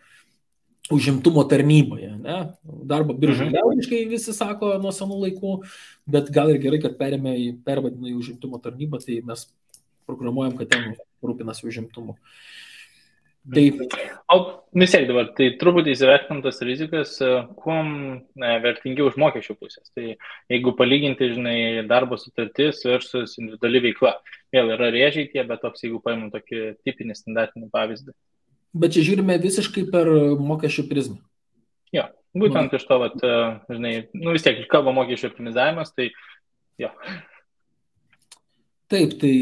užimtumo tarnyboje, ne? Darbo biržai liaudiškai visi sako nuo senų laikų, bet gal ir gerai, kad pervadino į užimtumo tarnybą, tai mes programuojam, kad ten rūpinasi užimtumu. Taip. O vis tiek dabar, tai truputį įsivertintas rizikas, kuom vertingiau iš mokesčių pusės. Tai jeigu palyginti, žinai, darbo sutartis versus individuali veikla, vėl yra rėžiai tie, bet toks, jeigu paimam tokį tipinį standartinį pavyzdį. Bet čia žiūrime visiškai per mokesčių prizmę. Jo, būtent iš to, žinai, vis tiek kalba mokesčių optimizavimas, tai jo. Taip, tai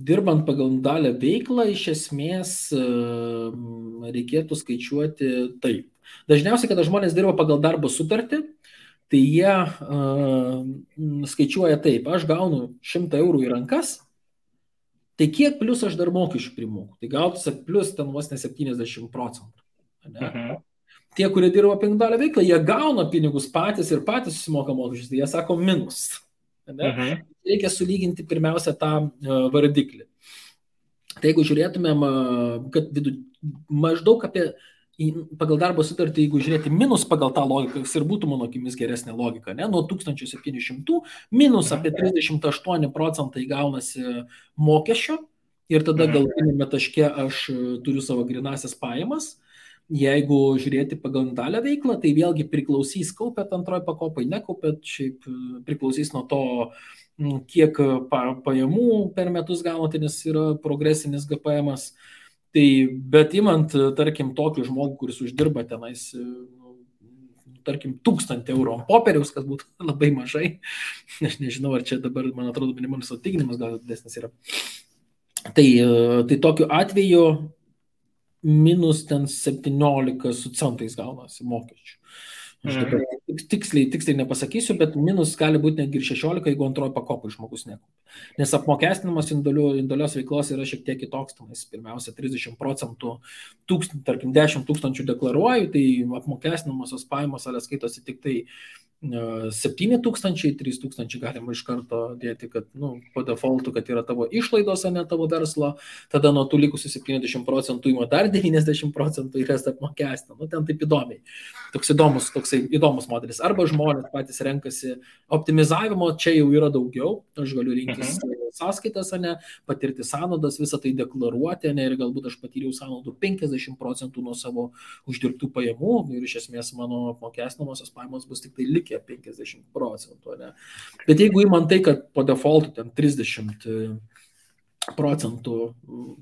dirbant pagal individualią veiklą, iš esmės reikėtų skaičiuoti taip. Dažniausiai, kada žmonės dirba pagal darbo sutartį, tai jie skaičiuoja taip, aš gaunu 100 eurų į rankas, tai kiek plus aš dar mokesčių primoku? Tai gautųsi plus ten vos ne 70%. Ne? Tie, kurie dirba pagal individualią veiklą, jie gauna pinigus patys ir patys susimoka mokesčius, tai jie sako minus. Reikia sulyginti pirmiausia tą vardiklį. Tai jeigu žiūrėtumėm, kad maždaug apie pagal darbo sutartį, jeigu žiūrėti minus pagal tą logiką, kas ir būtų mano akimis geresnė logika, ne? Nuo 1700 minus apie 38% gaunasi mokesčio ir tada galutinėme taške aš turiu savo grinasias pajamas. Jeigu žiūrėti pagal individualią veiklą, tai vėlgi priklausys, kaupėt antroji pakopai, nekaupėt, šiaip priklausys nuo to, kiek pajamų per metus gaunate, nes yra progresinis GPM-as. Tai, bet imant, tarkim, tokį žmogų, kuris uždirba tenais, tarkim, 1000 eurų ant popieriaus, kas būtų labai mažai. Aš nežinau, ar čia dabar, man atrodo, minimalus atlyginimas gal didesnis yra. Tai tokiu atveju minus ten 17 su centais gaunasi mokesčių. Aš dabar tiksliai nepasakysiu, bet minus gali būti netgi ir 16, jeigu antroji pakopai žmogus nekaupia. Nes apmokestinimas indalios veiklos yra šiek tiek kitoks. Pirmiausia, 30%, tarkim, 10 000 deklaruoju, tai apmokestinamosios pajamos skaitosi tik tai 7 000, 3 000 galima iš karto dėti, kad po defaultu, kad yra tavo išlaidos, ne tavo verslo, tada nuo tų likusių 70% ima dar 90% ir jas apmokestina. Ten taip įdomiai. Toks įdomus modelis. Arba žmonės patys renkasi optimizavimo, čia jau yra daugiau, aš galiu rinktis sąskaitas, patirti sąnaudas, visą tai deklaruoti, ir galbūt aš patyriau sąnaudų 50% nuo savo uždirbtų pajamų ir iš esmės mano apmokestinamosios pajamos bus tik tai likę 50%. Bet jeigu įman tai, kad po defaultu ten 30%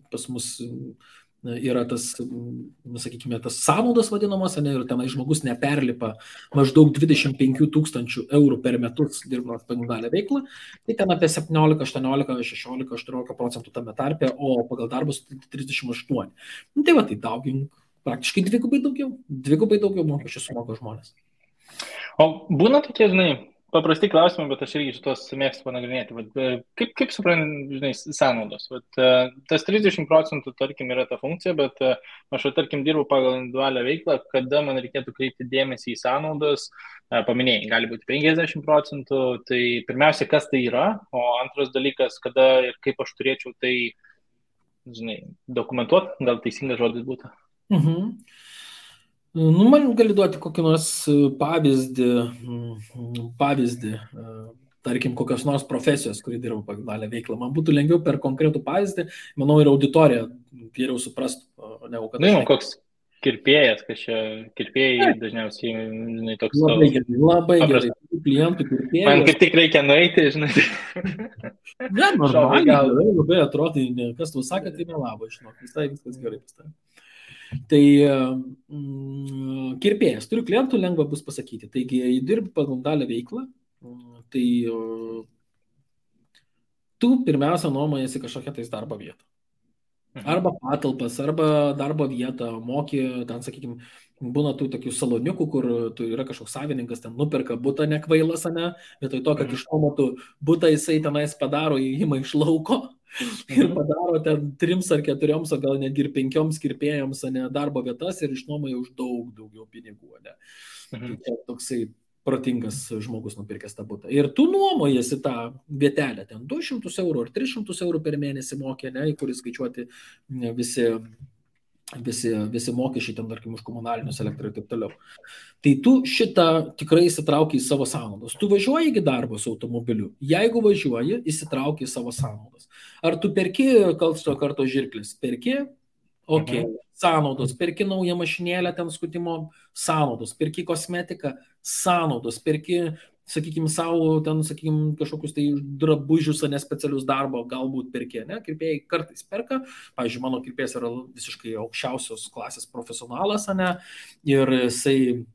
pas mus yra tas, sakykime, tas sąnaudos vadinamos, ir tenai žmogus neperlipa maždaug 25 000 eurų per metus dirbant pagal dalę veiklą, tai ten apie 17, 18, 16, 18% tame tarpe, o pagal darbus 38. Tai va, tai daugink praktiškai dvigubai daugiau mokesčių sumoka žmonės. O būna tokie, paprasti klausimai, bet aš irgi šitos mėgstu panagrinėti. Kaip supranti, sąnaudos? Tas 30%, tarkim, yra ta funkcija, bet aš, tarkim, dirbu pagal individualią veiklą, kada man reikėtų kreipti dėmesį į sąnaudas, paminėjai, gali būti 50%, tai pirmiausia, kas tai yra, o antras dalykas, kada ir kaip aš turėčiau tai, dokumentuoti, gal teisingas žodis būtų. Man gali duoti kokį nors pavyzdį, tarkim, kokios nors profesijos, kuri dirba pagal dalę veiklą. Man būtų lengviau per konkretų pavyzdį, manau, ir auditorija geriau suprastų. Koks kirpėjas, kad čia kirpėjai dažniausiai, toks... Labai gerai. Klientų kirpėjai. Man kaip tik reikia nueiti, Ne, normaliai, labai atrodo, kas tu sakė, tai nelabo, viskas gerai pastatė. Tai kirpėjas, turiu klientų, lengva bus pasakyti. Taigi, jei dirbi pagal dalę veiklą, tai tu pirmiausia nuomojasi kažkokią tais darbo vietą. Arba patalpas, arba darbo vietą, moki, ten, sakykime, būna tų tokių saloniukų, kur tu yra kažkoks savininkas, ten nuperka butą nekvailas, vietoj to, kad išnuomotų butą, jisai tenais padaro įėjimą iš lauko ir padaro ten 3 ar 4, o gal netgi ir 5 kirpėjams darbo vietas ir išnuomoja už daugiau pinigų. Tai čia toksai protingas žmogus nupirkęs tą butą. Ir tu nuomojasi tą vietelę, ten 200 eurų ar 300 eurų per mėnesį mokė, į kurį skaičiuoti visi mokesčiai, ten, tarkim, už komunalinius, elektrą ir taip toliau. Tai tu šitą tikrai įsitrauki į savo sąnaudas. Tu važiuoji į darbą su automobiliu. Jeigu važiuoji, įsitrauki į savo sąnaudas. Ar tu perki karto žirklis? Perki? Ok. Sąnaudos. Perki naują mašinėlę, ten skutimo sąnaudos. Perki kosmetiką, sąnaudos. Perki, sakykime, savo, ten, sakykime, kažkokius tai drabužius, specialius darbo, galbūt perki, kirpėjai kartais perka. Pavyzdžiui, mano kirpėjas yra visiškai aukščiausios klasės profesionalas, ir jisai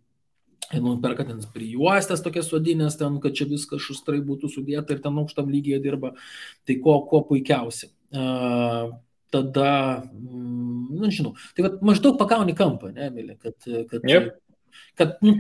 perka ten prijuostės tokias sodinės, ten, kad čia viskas šustrai būtų sudėta ir ten aukštam lygyje dirba. Tai kuo puikiausiai. Tada, žinau, tai maždaug pagauni kampą, Emilė, kad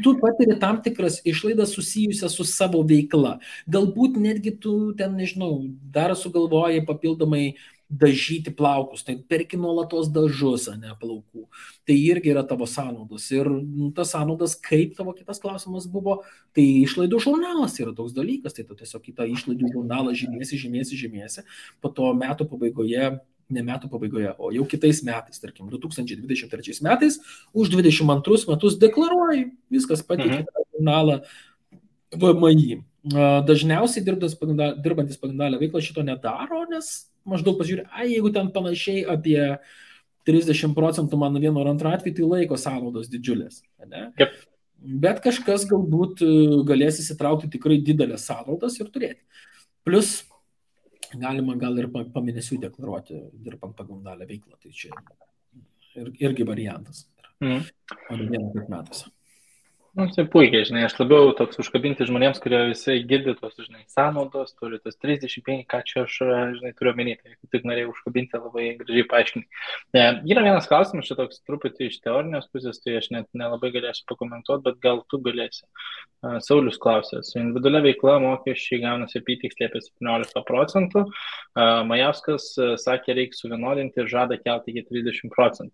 tu patiri tam tikras išlaidas susijusias su savo veikla. Galbūt netgi tu ten, nežinau, dar sugalvoji papildomai dažyti plaukus, tai perki nuolatos dažus, plaukų. Tai irgi yra tavo sąnaudos. Ir tas sąnaudas, kaip tavo kitas klausimas buvo, tai išlaidų žurnalas yra toks dalykas, tai tu tiesiog į tą išlaidų žurnalą žymėsi, po to metų pabaigoje, ne metų pabaigoje, o jau kitais metais, tarkim, 2023 metais, už 22 metus deklaruoji, viskas pateikė tą žurnalą VMI. Dažniausiai dirbantis pagal dalę veiklą šito nedaro, nes maždaug pažiūrė, jeigu ten panašiai apie 30% mano vieno ar antro atveju, tai laiko sąnaudos didžiulės. Yep. Bet kažkas galbūt galės įsitraukti tikrai didelės sąnaudas ir turėti. Plus galima gal ir pamėnesių deklaruoti, dirbant pagal dalę veiklą. Tai čia irgi variantas. Mhm. O ne vieną kaip metuose. Tai puikiai, žinai, aš labiau toks užkabinti žmonėms, kurie visai girdi tos, žinai, sąnaudos, turi tas 35, ką čia aš, žinai, turiu omeny, tai tik norėjau užkabinti, labai gražiai paaiškinti. Yra vienas klausimas, čia toks truputį iš teorinės pusės, tai aš net nelabai galėsiu pakomentuoti, bet gal tu galėsi. Saulius klausė, su individualia veikla mokesčiai gaunasi apytiksliai apie 17%, Majauskas sakė, reikia suvienodinti ir žada kelti iki 30%.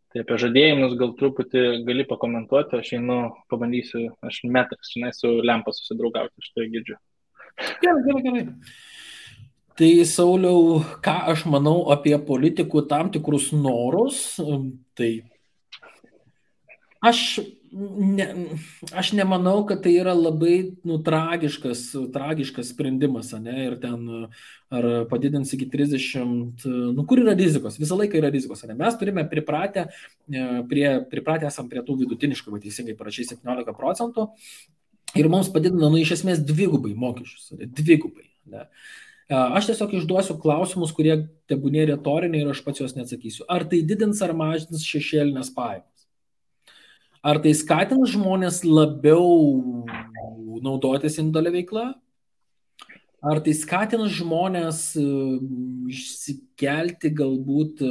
Tai apie žadėjimus gal truputį gali pakomentuoti, aš einu, pabandysiu, aš metras, žinai, su lempa susidraugauti, aš tai girdžiu. Gerai. Tai Sauliau, ką aš manau apie politikų tam tikrus norus, tai aš nemanau, kad tai yra labai tragiškas sprendimas, ne? Ir ten ar padidins iki 30, kur yra rizikos, visą laiką yra rizikos, ne? Mes turime pripratę esam prie tų vidutiniškai, va teisingai parašai 17% ir mums padidina, iš esmės dvigubai mokesčius, dvigubai, ne? Aš tiesiog išduosiu klausimus, kurie tebūnė retoriniai ir aš pats juos neatsakysiu. Ar tai didins ar mažins šešėlinės pajamas? Ar tai skatins žmonės labiau naudotis individualia veikla? Ar tai skatins žmonės išsikelti galbūt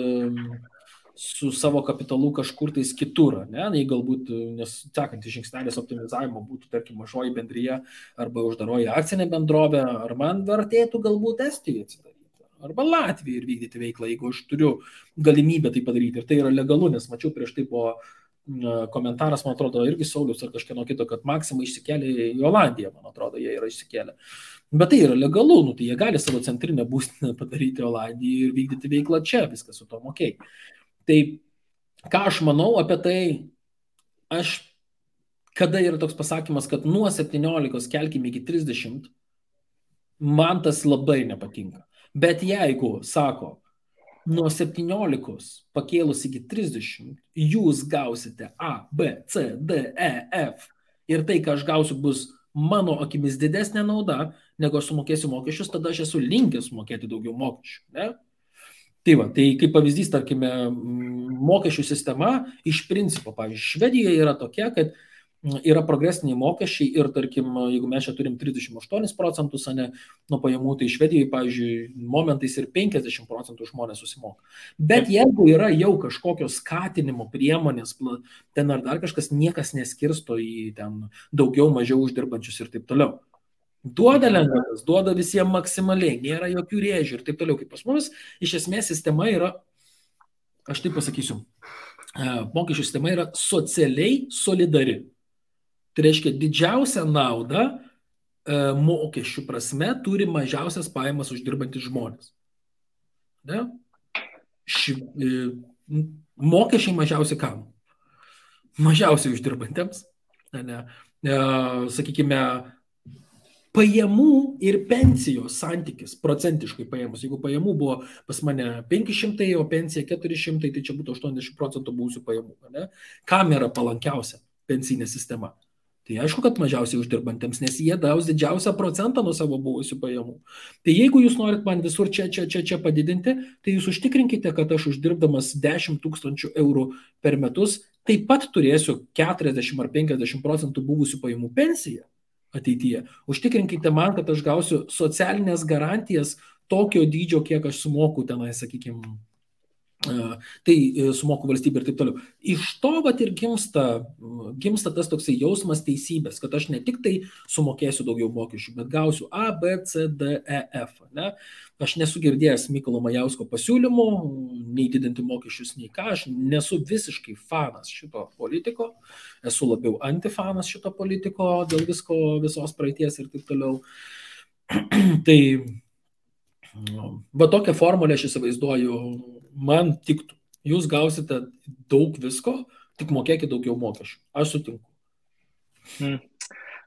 su savo kapitalu kažkur tais kitur, ne? Jei galbūt, nes sekantis žingsnelis optimizavimo būtų, tarkim, mažoji bendryje arba uždaroji akcinė bendrovė, ar man vertėtų galbūt Estijoje atsidaryti, arba Latvijai ir vykdyti veiklą, jeigu aš turiu galimybę tai padaryti. Ir tai yra legalu, nes mačiau prieš tai po komentaras, man atrodo, irgi Saulius ar kažkieno kito, kad Maxima išsikėlė į Olandiją, man atrodo, jie yra išsikėlę. Bet tai yra legalu, tai jie gali savo centrinę būstinę padaryti Olandiją ir vykdyti veiklą čia, viskas su tom okei. Tai ką aš manau apie tai, kada yra toks pasakymas, kad nuo 17 kelkime iki 30, man tas labai nepatinka. Bet jeigu sako, nuo 17 pakėlus iki 30, jūs gausite A, B, C, D, E, F ir tai, ką aš gausiu, bus mano akimis didesnė nauda, negu aš sumokėsiu mokesčius, tada aš esu linkęs sumokėti daugiau mokesčių. Ne? Tai kaip pavyzdys, tarkime, mokesčių sistema iš principo, pavyzdžiui, Švedijoje yra tokia, kad yra progresiniai mokesčiai ir, tarkim, jeigu mes čia turim 38%, ne, nuo pajamų, tai Švedijoje, pavyzdžiui, momentais ir 50% žmonės susimoka. Bet jeigu yra jau kažkokios skatinimo priemonės, ten ar dar kažkas, niekas neskirsto į ten daugiau, mažiau uždirbančius ir taip toliau. Duoda lengvatas, duoda visiems maksimaliai, nėra jokių rėžių ir taip toliau. Kaip pas mumis, iš esmės sistema yra, aš taip pasakysiu, mokesčių sistema yra socialiai solidari. Tai reiškia, didžiausią naudą mokesčių prasme turi mažiausias pajamas uždirbantys žmonės. Ne? Mokesčiai mažiausiai kam? Mažiausiai uždirbantiems. Ne? Sakykime, pajamų ir pensijos santykis, procentiškai pajamus. Jeigu pajamų buvo pas mane 500, o pensija 400, tai čia būtų 80% buvusių pajamų. Ne? Kam yra palankiausia pensinė sistema? Tai aišku, kad mažiausiai uždirbantiems, nes jie gaus didžiausią procentą nuo savo buvusių pajamų. Tai jeigu jūs norit man visur čia padidinti, tai jūs užtikrinkite, kad aš uždirbdamas 10 000 eurų per metus taip pat turėsiu 40 ar 50% buvusių pajamų pensiją ateityje. Užtikrinkite man, kad aš gausiu socialinės garantijas tokio dydžio, kiek aš sumoku tenai, sakykime, tai sumoku valstybė ir taip toliau. Iš to vat ir gimsta tas toksai jausmas teisybės, kad aš ne tik tai sumokėsiu daugiau mokesčių, bet gausiu A, B, C, D, E, F. Ne? Aš nesu girdėjęs Mykolo Majausko pasiūlymų, nei didinti mokesčius, nei ką. Aš nesu visiškai fanas šito politiko, esu labiau antifanas šito politiko dėl visko, visos praeities ir taip toliau. Tai va tokią formulę aš įsivaizduoju, man tiktų. Jūs gausite daug visko, tik mokėkite daugiau mokesčių. Aš sutinku.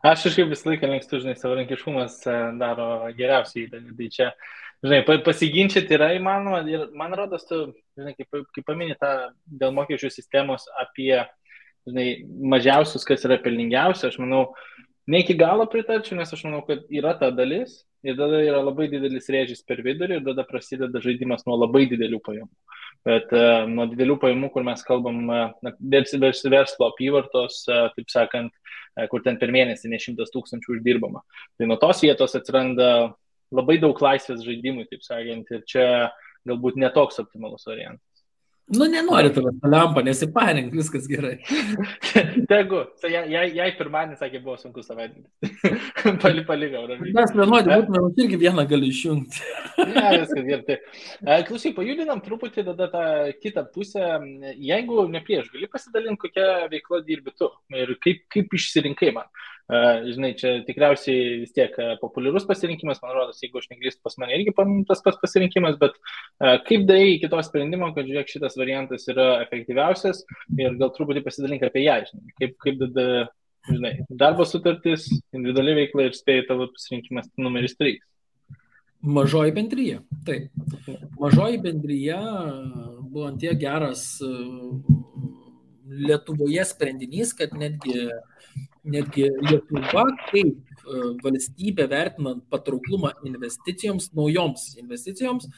Aš kažkaip visą laiką mėgstu, žinai, savarankiškumas daro geriausiai įdėlį. Tai čia, žinai, pasiginčyti yra įmanoma ir man rodos, tu, žinai, kaip paminė tą dėl mokesčių sistemos apie, žinai, mažiausius, kas yra pelningiausia, aš manau, ne iki galo pritarčiau, nes aš manau, kad yra ta dalis ir tada yra labai didelis rėžis per vidurį ir tada prasideda žaidimas nuo labai didelių pajamų. Bet nuo didelių pajamų, kur mes kalbam, verslo apyvartos, taip sakant, kur ten per mėnesį ne 100 000 uždirbama. Tai nuo tos vietos atsiranda labai daug laisvės žaidimui, taip sakant, ir čia galbūt netoks optimalus variantas. Nu, nenori tavęs lempa, nesiparink, viskas gerai. Tegu, jai pirmadienis, sakė, buvo sunku savaitgalis. Palikau, ramiai. Mes vienodį būtume, irgi vieną gali išjungti. Ne, viskas gerai. Klausyk, pajudinam truputį tada tą kitą pusę. Jeigu ne prieš, gali pasidalinti, kokią veiklą dirbi tu ir kaip išsirinkai man. Žinai, čia tikriausiai vis tiek populiarus pasirinkimas, man rodos, jeigu aš neklystu, pas mane irgi tas pats pasirinkimas, bet kaip darai iki to sprendimo, kad žiūrėk, šitas variantas yra efektyviausias ir gal truputį pasidalink apie ją, žinai, kaip tada, žinai, darbo sutartis, individuali veikla ir spėjai tavo pasirinkimas numeris 3. Mažoji bendryja, taip. Mažoji bendryja buvo ant tiek geras Lietuvoje sprendinys, kad netgi Lietuva kaip valstybė vertinant patrauklumą investicijoms, naujoms investicijoms,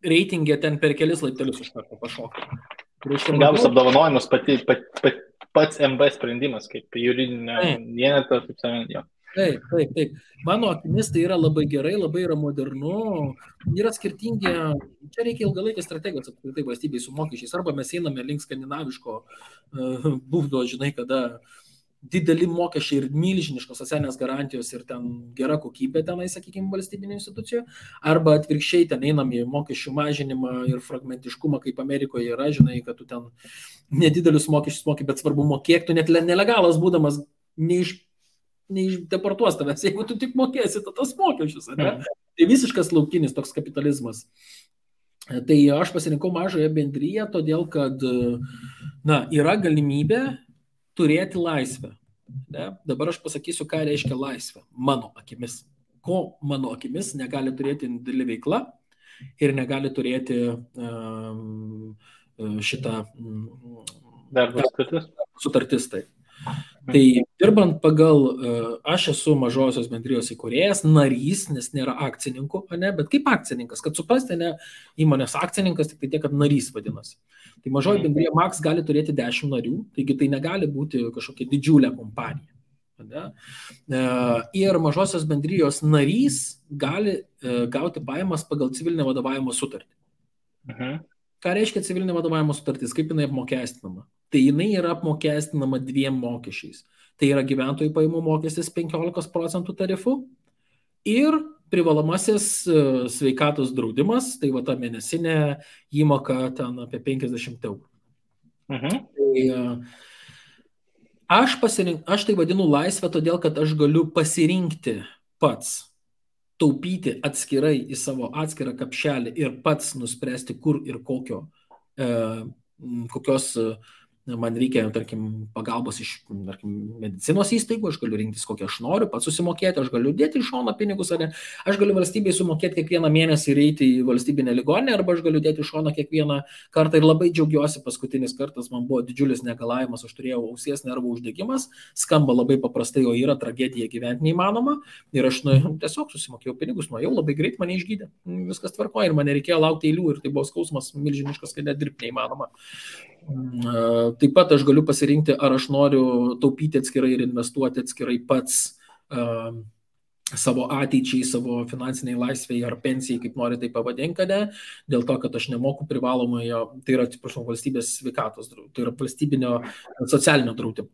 reitingė ten per kelis laiptelius iš karto pašoka. Gavus apdovanojimus pats MB sprendimas, kaip juridinė vienetą, taip sakant, jo. Taip. Mano akimis tai yra labai gerai, labai yra modernu, yra skirtingi, čia reikia ilgalaikės strategijos apskritai valstybei su mokesčiais, arba mes einame link skandinaviško būdo, žinai, kada dideli mokesčiai ir milžiniškos socialinės garantijos ir ten gera kokybė tenai, sakykime, valstybinio institucijų, arba atvirkščiai ten einam į mokesčių mažinimą ir fragmentiškumą, kaip Amerikoje yra, žinai, kad tu ten nedidelius mokesčius moki, bet svarbu mokėk, tu net nelegalas būdamas neišdeportuos tavęs, jeigu tu tik mokėsi tas mokesčius, ne? Tai visiškas laukinis toks kapitalizmas. Tai aš pasirinkau mažąją bendryją, todėl kad yra galimybė turėti laisvę. Ne? Dabar aš pasakysiu, ką reiškia laisvė mano akimis. Ko mano akimis negali turėti didelė veikla ir negali turėti šitą darbo sutartis. Tai dirbant pagal, aš esu mažosios bendrijos įkūrėjas, narys, nes nėra akcininkų, ne, bet kaip akcininkas, kad suprasti, ne, įmonės akcininkas, tik tai tiek, kad narys vadinasi. Tai mažoji bendrija Max gali turėti 10 narių, taigi tai negali būti kažkokia didžiulė kompanija. Ne? Ir mažosios bendrijos narys gali gauti pajamas pagal civilinę vadovavimo sutartį. Ką reiškia civilinė vadovavimo sutartis, kaip jinai apmokestinama? Tai jinai yra apmokestinama 2 mokesčiais. Tai yra gyventojų pajamų mokestis 15% tarifu ir privalomasis sveikatos draudimas, tai va ta mėnesinė įmoka ten apie 50 eurų. Tai aš tai vadinu laisvę, todėl kad aš galiu pasirinkti pats, taupyti atskirai į savo atskirą kapšelį ir pats nuspręsti, kur ir kokios man reikia, tarkim, pagalbos iš, tarkim, medicinos įstaigų, aš galiu rinktis, kokią aš noriu, pats susimokėti, aš galiu dėti iš šono pinigus, ar ne, aš galiu valstybei sumokėti kiekvieną mėnesį ir eiti į valstybinę ligoninę, arba aš galiu dėti iš šono kiekvieną kartą ir labai džiaugiuosi, paskutinis kartas man buvo didžiulis negalavimas, aš turėjau ausies nervų uždegimas, skamba labai paprastai, o yra tragedija gyventi neįmanoma ir aš tiesiog susimokėjau pinigus, nuėjau labai greit, mane išgydė, viskas tvarkoja ir man nereikėjo laukti eilių ir tai buvo skausmas milžiniškas, kad net dirbti neįmanoma. Taip pat aš galiu pasirinkti, ar aš noriu taupyti atskirai ir investuoti atskirai pats savo ateičiai, savo finansiniai laisvėje ar pensijai, kaip nori tai pavadinkate, dėl to, kad aš nemoku privalomojo, tai yra, atsiprašau, valstybės sveikatos, tai yra valstybinio socialinio draudimo.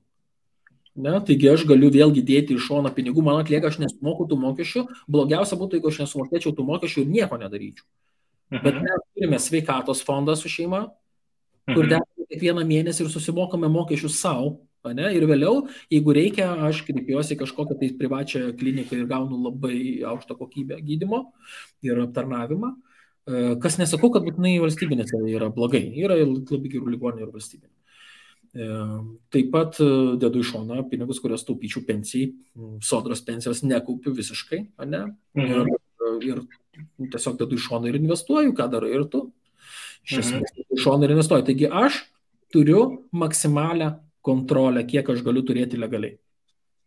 Ne? Taigi aš galiu vėlgi dėti iš šono pinigų, man atlieka, aš nesumoku tų mokesčių, blogiausia būtų, jeigu aš nesumokėčiau tų mokesčių ir nieko nedaryčiau. Bet mes turime sveikatos fondą su šeima, kur dedame kiekvieną mėnesį ir susimokame mokesčius savo, ne? Ir vėliau, jeigu reikia, aš kreipiuosi kažkokią tai privačią kliniką ir gaunu labai aukštą kokybę gydymo ir aptarnavimą, kas nesakau, kad būtinai valstybinėse yra blogai, yra labai gerų ligoninių ir valstybinių. Taip pat dedu iš šoną pinigus, kurios taupyčiau pensijai, sodros pensijos nekaupiu visiškai, ne? Ir tiesiog dedu iš šoną ir investuoju, ką darai ir tu. Iš šono ir investuoju. Taigi aš turiu maksimalią kontrolę, kiek aš galiu turėti legaliai.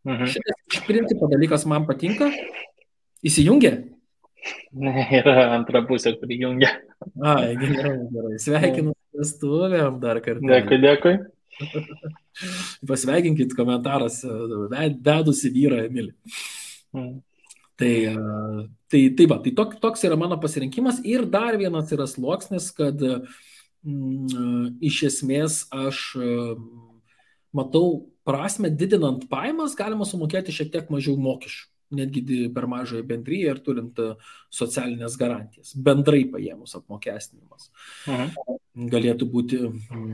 Šitas iš principo dalykas man patinka. Įsijungia? Yra antra pusė, kuri jungia. Ai, gerai. Sveikinu vestuvėm dar kartelį. Dėkui, dėkui. Pasveikinkit komentaras vedusi vyrą Emilį. Tai toks yra mano pasirinkimas. Ir dar vienas yra sluoksnis, kad iš esmės aš matau prasme, didinant pajamas galima sumokėti šiek tiek mažiau mokesčių, netgi per mažąją bendryją ir turint socialinės garantijas. Bendrai paėmus apmokestinimas galėtų būti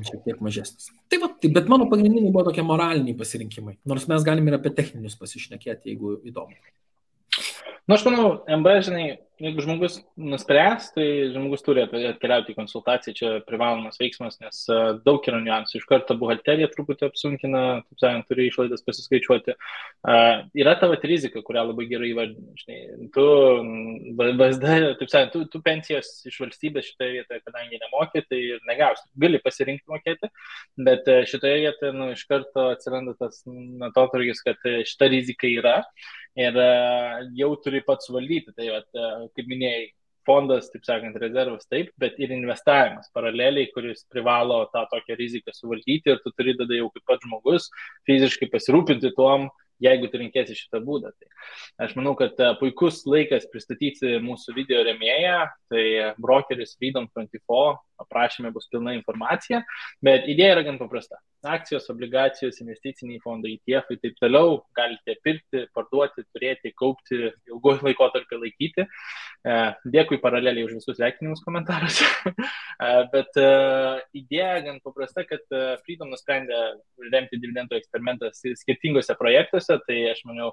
šiek tiek mažesnis. Bet mano pagrindiniai buvo tokie moraliniai pasirinkimai, nors mes galime ir apie techninius pasišnekėti, jeigu įdomu. Aš manau, MB, žinai, jeigu žmogus nuspręs, tai žmogus turi atkeliauti į konsultaciją, čia privalomas veiksmas, nes daug yra niuansų. Iš karto buhalterija truputį apsunkina, taip sakant, turi išlaidas pasiskaičiuoti. Yra tavo rizika, kurią labai gerai įvardini. Žinai, tu VSD, taip sakant, tu pensijos iš valstybės šitoje vietoje, kadangi nemokė, tai ir negausi. Gali pasirinkti mokėti, bet šitoje vietoje iš karto atsiranda tas atotrūkis, kad šita rizika yra. Ir jau turi pats valdyti, tai kaip minėjai, fondas, taip sakant, rezervas taip, bet ir investavimas paraleliai, kuris privalo tą tokią riziką suvaldyti ir tu turi tada jau kaip pats žmogus fiziškai pasirūpinti tuom, jeigu tu rinkėsi šitą būdą. Tai aš manau, kad puikus laikas pristatyti mūsų video rėmėją, tai brokeris Freedom24, aprašyme bus pilna informacija, bet idėja yra gan paprasta. Akcijos, obligacijos, investiciniai fondai, ETF ir taip toliau galite pirkti, parduoti, turėti, kaupti, ilguoju laikotarpį laikyti. Dėkui paraleliai už visus sveikinimus komentaruose. Bet idėja gan paprasta, kad Freedom nusprendė remti dividendų eksperimentą skirtingose projektuose, tai aš manau,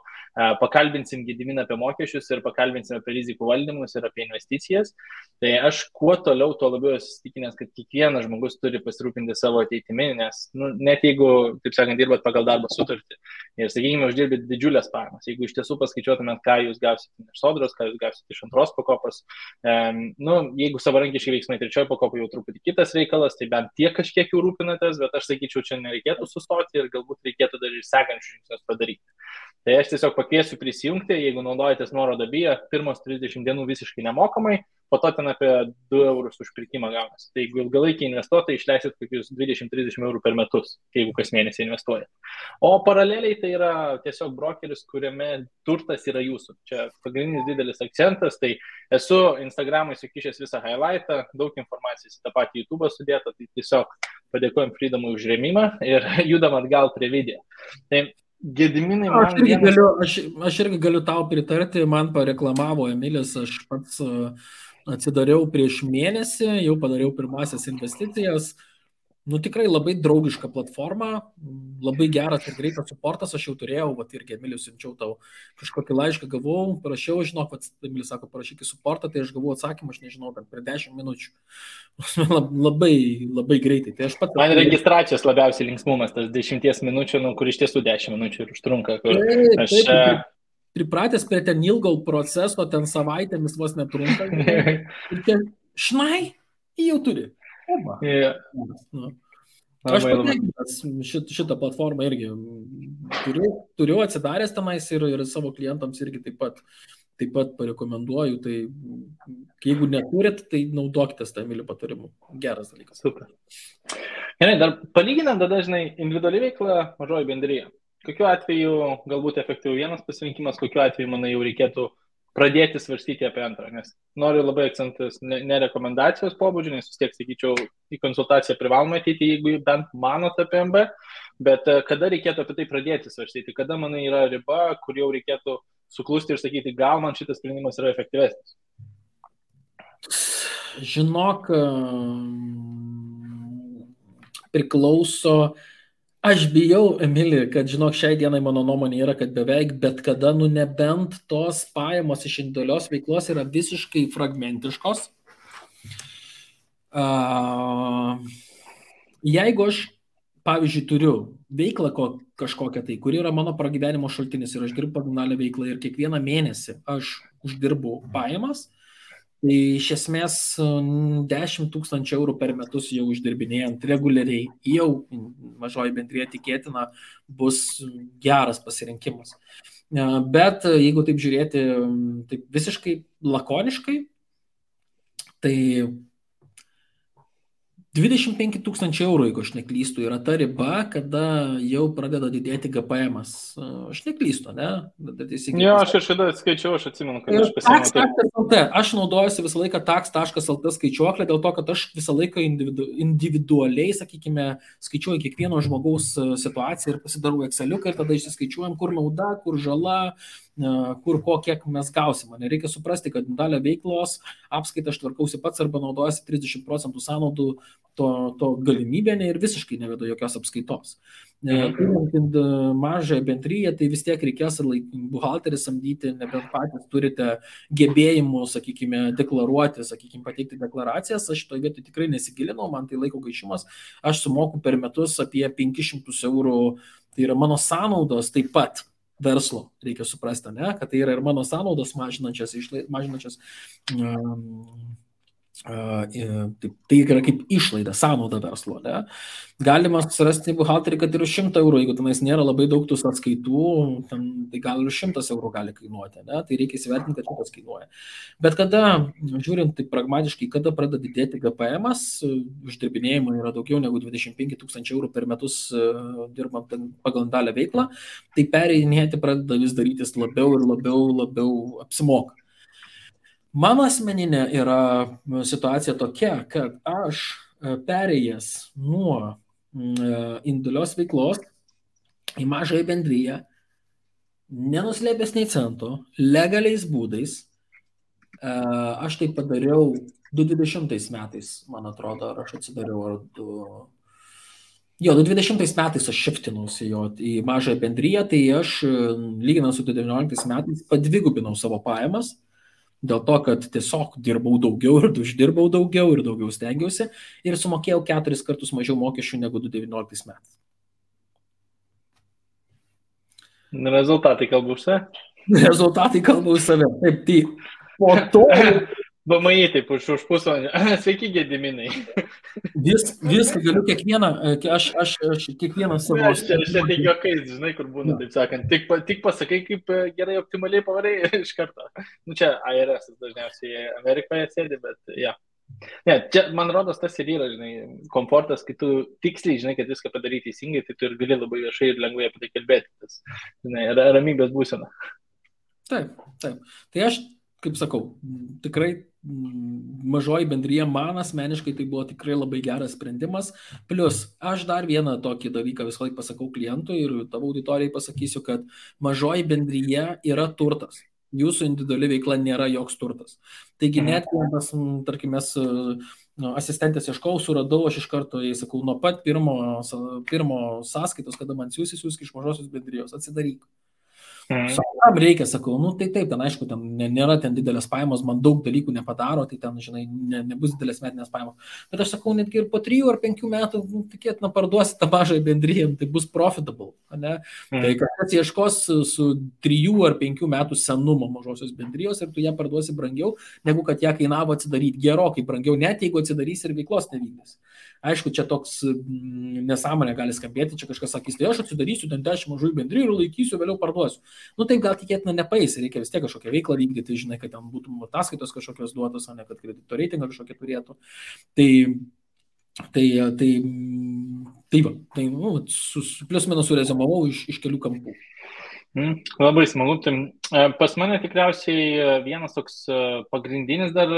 pakalbinsim Gediminą apie mokesčius ir pakalbinsim apie rizikų valdymus ir apie investicijas. Tai aš kuo toliau, tuo labiau esu įsitikinęs, kad kiekvienas žmogus turi pasirūpinti savo ateitimi, nes net jeigu, taip sakant, dirbat pagal darbo sutartį ir, sakykime, uždirbit didžiulės pajamas, jeigu iš tiesų paskaičiuotumėt, ką jūs gausite iš sodros, ką jūs gausite iš antros pakopos, jeigu savarankiškai veiksmai trečioje pakopoje jau truputį kitas reikalas, tai bent tiek kažkiek jau rūpinatės, bet aš sakyčiau, čia nereikėtų sustoti ir galbūt reikėtų dar ir sekančius žingsnius padaryti. Tai aš tiesiog pakviesiu prisijungti, jeigu naudojatės nuorodą BIA, pirmos 30 dienų visiškai nemokamai, po to ten apie 2 eurus už pirkimą gaunasi. Tai jeigu ilgalaikiai investuotojai išleisit kokius 20-30 eurų per metus, jeigu kas mėnesį investuojat. O paraleliai tai yra tiesiog brokeris, kuriame turtas yra jūsų. Čia pagrindinis didelis akcentas, tai esu Instagram'ai sukišęs visą highlightą, daug informacijos į tą patį YouTube sudėta, tai tiesiog padėkojom Freedomui už rėmimą ir judam atgal prie video. Tai Gediminai, aš irgi galiu tau pritarti, man pareklamavo Emilis, aš pats atsidariau prieš mėnesį, jau padariau pirmasias investicijas. Tikrai labai draugiška platforma, labai geras ir greitas suportas, aš jau turėjau, irgi Emilis siunčiau tau kažkokį laišką, gavau, parašiau, žinok, Emilis sako, parašyk į suportą, tai aš gavau atsakymą, aš nežinau, bet per 10 minučių. Labai greitai. Tai man registracijos labiausiai linksmumas, tas 10 minučių, kur iš tiesų 10 minučių ir užtrunka. Taip, pripratęs prie ten ilgo proceso, ten savaitėmis vos netrunka. Ir ten, jau turi. Aš patenkintas šitą platformą irgi turiu atsidaręs tenais ir savo klientams irgi taip pat parekomenduoju. Tai jeigu neturit, tai naudokitės tą Emilio patarimu. Geras dalykas. Super. Gerai, dar palyginant dažnai individuali veikla, mažoji bendryja. Kokiu atveju galbūt efektyviau vienas pasirinkimas, kokiu atveju, manai, jau reikėtų pradėti svarstyti apie antrą, nes noriu labai akcentas ne rekomendacijos pobūdžio, nes vis tiek, sakyčiau, į konsultaciją privaloma ateiti, jeigu bent manot apie MB, bet kada reikėtų apie tai pradėti svarstyti, kada, manai, yra riba, kur jau reikėtų suklusti ir sakyti, gal man šitas sprendimas yra efektyvesnis. Žinok, priklauso. Aš bijau, Emili, kad, žinok, šiai dienai mano nuomonė yra, kad beveik bet kada, nebent tos pajamos iš individualios veiklos yra visiškai fragmentiškos. Jeigu aš, pavyzdžiui, turiu veiklą kažkokią tai, kuri yra mano pragyvenimo šaltinis ir aš dirbu pagrindinę veiklą ir kiekvieną mėnesį aš uždirbu pajamas, tai iš esmės 10 000 eurų per metus jau uždirbinėjant reguliariai, jau mažoji bendrija tikėtina bus geras pasirinkimas. Bet jeigu taip žiūrėti taip visiškai lakoniškai, tai 25 000 eurų, jeigu aš neklystu, yra ta riba, kada jau pradeda didėti GPM-as. Aš neklystu, ne? Jo, aš kažkada skaičiau, aš atsimenu, kad aš pasiėmiau taip. Tax.lt. Aš naudojuosi visą laiką tax.lt skaičiuoklę, dėl to, kad aš visą laiką individualiai, sakykime, skaičiuoju kiekvieno žmogaus situaciją ir pasidarau Exceliuką ir tada išsiskaičiuojam, kur nauda, kur žala, kur kiek mes gausim. Reikia suprasti, kad dalį veiklos apskaitą aš tvarkausi pats arba naudojasi 30% sąnaudų to galimybė ir visiškai nevedu jokios apskaitos. Turint mažąją bendryją, tai vis tiek reikės buhalterį samdyti, nebent patys turite gebėjimų, sakykime, deklaruoti, sakykime, pateikti deklaracijas. Aš šitoje vietoje tikrai nesigilinau, man tai laiko gaišimas. Aš sumoku per metus apie 500 eurų, tai yra mano sąnaudos taip pat verslo, reikia suprasti, ne? Kad tai yra ir mano sąnaudos mažinančias tai yra kaip išlaida, sąnauda verslo. Ne? Galima susirasti buhalterį, kad ir už 100 eurų, jeigu tenais nėra labai daug tų sąskaitų, tai gal ir 100 eurų gali kainuoti. Ne? Tai reikia įsivertinti, kad šitas kainuoja. Bet kada, žiūrint tai pragmatiškai, kada pradeda didėti GPM-as, uždirbinėjimo yra daugiau negu 25 000 eurų per metus dirbant pagal dalę veiklą, tai pereinėti pradeda vis darytis labiau ir labiau apsimoka. Mano asmeninė yra situacija tokia, kad aš perėjęs nuo individualios veiklos į mažąją bendryją, nenuslėpęs nei cento, legaliais būdais, aš tai padariau 2020 metais, man atrodo, ar aš atsidariau, 2020 metais aš šiftinausi į mažąją bendryją, tai aš, lyginant su 2019 metais, padvigubinau savo pajamas, dėl to, kad tiesiog dirbau daugiau ir uždirbau daugiau ir daugiau stengiausi ir sumokėjau 4 kartus mažiau mokesčių negu 2019 metais. Rezultatai kalba už save? Rezultatai kalba už save. Taip, tai po to... VMI taip už pusvalandį. Sveiki, Gediminai. Viską galiu kiekvieną, aš kiekvieną savo... Aš čia tik juokais, žinai, kur būna, taip sakant. Tik pasakai, kaip gerai optimaliai pavarai iš karto. Čia IRS dažniausiai Amerikoje sėdi, bet ja. Ne, čia, man rodos, tas ir yra, žinai, komfortas, kai tu tiksliai, žinai, kad viską padaryti teisingai, tai tu ir gali labai viešai ir lengvai apie tai kalbėti. Tas, žinai, ramybės būsena. Taip. Tai aš, kaip sakau, tikrai mažoji bendryja man asmeniškai tai buvo tikrai labai geras sprendimas. Plius, aš dar vieną tokį dalyką visą laiką pasakau klientui ir tavo auditorijai pasakysiu, kad mažoji bendryja yra turtas. Jūsų individuali veikla nėra joks turtas. Taigi net, tarkim, mes asistentės ieškau, suradau, aš iš karto, jai sakau, nuo pat pirmo sąskaitos, kada man siūsk iš mažosios bendrijos, atsidaryk. Kam reikia, sakau, tai taip, ten aišku, ten nėra ten didelės pajamos, man daug dalykų nepadaro, tai ten, žinai, nebus didelės metinės pajamos. Bet aš sakau, netgi ir po 3 ar 5 metų, tikėtina, parduosi tą mažąją bendryją, tai bus profitable, ne? Tai kažkas ieškos su 3 ar 5 metų senumo mažosios bendrijos ir tu ją parduosi brangiau, negu kad ją kainavo atsidaryti, gerokai brangiau, net jeigu atsidarys ir veiklos nevykdys. Aišku, čia toks nesąmonė gali skambėti, čia kažkas sakys, tai aš atsidarysiu ten 10 mažųjų bendrijų ir laikysiu, vėliau parduosiu. Taip gal tikėtina nepaeis, reikia vis tiek kažkokią veiklą vykdyti, žinai, kad ten būtų ataskaitos kažkokios duotos, o ne kad kredito reitingą kažkokią turėtų. Plius minus surezumavau iš kelių kampų. Labai smagu. Pas mane tikriausiai vienas toks pagrindinis dar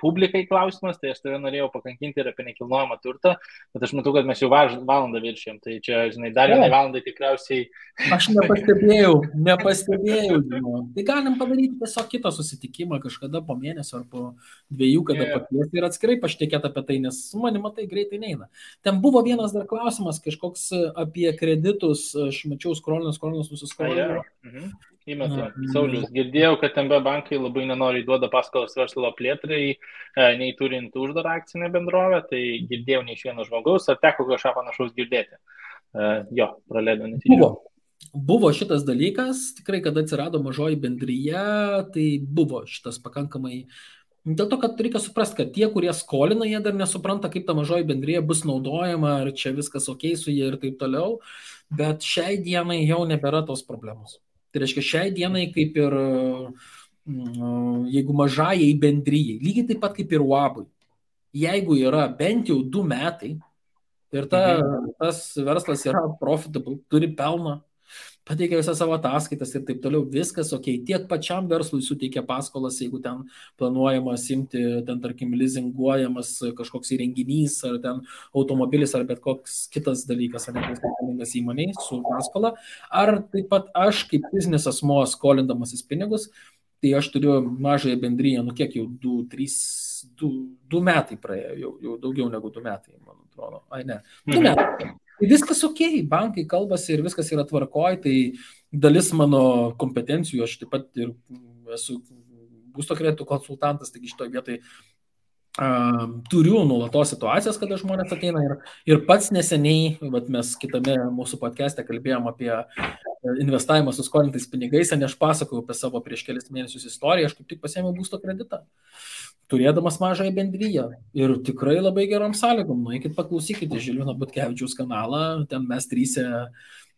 publikai klausimas, tai aš tave norėjau pakankinti ir apie nekilnojamą turtą, bet aš matau, kad mes jau valandą viršėjom, tai čia, žinai, dar vienai valandai tikriausiai... Aš nepastebėjau. Tai galim padaryti tiesiog kitą susitikimą kažkada po mėnesio ar po 2, kada pakviesti ir atskirai pašnekėti apie tai, nes su manimi tai greitai neina. Ten buvo vienas dar klausimas, kažkoks apie kreditus, aš mačiau skrolinus nusiskrolinus. Įmetu. Saulius, girdėjau, kad MB bankai labai nenoriai duoda paskolas verslo plėtrai, nei turint uždarą akcinę bendrovę, tai girdėjau ne iš vieno žmogaus, ar teko kažką panašaus girdėti? Praleido netyčia. Buvo šitas dalykas, tikrai, kada atsirado mažoji bendryje, tai buvo šitas pakankamai. Dėl to, kad reikia suprasti, kad tie, kurie skolina, jie dar nesupranta, kaip ta mažoji bendryje bus naudojama, ar čia viskas ok su jie ir taip toliau, bet šiai dienai jau nebėra tos problemos. Tai reiškia, šiai dienai kaip ir jeigu mažajai bendryjai, lygiai taip pat kaip ir UABui, jeigu yra bent jau 2 metai ir tas verslas yra profitable, turi pelną, pateikia visą savo ataskaitas ir taip toliau, viskas ok, tiek pačiam verslui suteikia paskolas, jeigu ten planuojama simti, ten tarkim lizinguojamas kažkoks įrenginys, ar ten automobilis, ar bet koks kitas dalykas, ar nepriskaitingas įmoniai su paskola, ar taip pat aš kaip fizinis asmuo skolindamasis pinigus, tai aš turiu mažąją bendryją, nu kiek jau 2 metai praėjo, jau daugiau negu 2 metai, man atrodo, ai ne, 2 metai. Tai viskas ok, bankai kalbasi ir viskas yra tvarkoj, tai dalis mano kompetencijų, aš taip pat ir esu būsto kreditų konsultantas, taigi šitoje vietoje turiu nuolatos situacijas, kada žmonės ateina ir pats neseniai, mes kitame mūsų podcast'e kalbėjom apie investavimą su skolintais pinigais, ne aš pasakojau apie savo prieš kelis mėnesius istoriją, aš kaip tik pasiėmiau būsto kreditą, turėdamas mažąją bendryją ir tikrai labai gerom sąlygom, nueikit paklausykite Žilvino Butkevičiaus kanalą, ten mes 3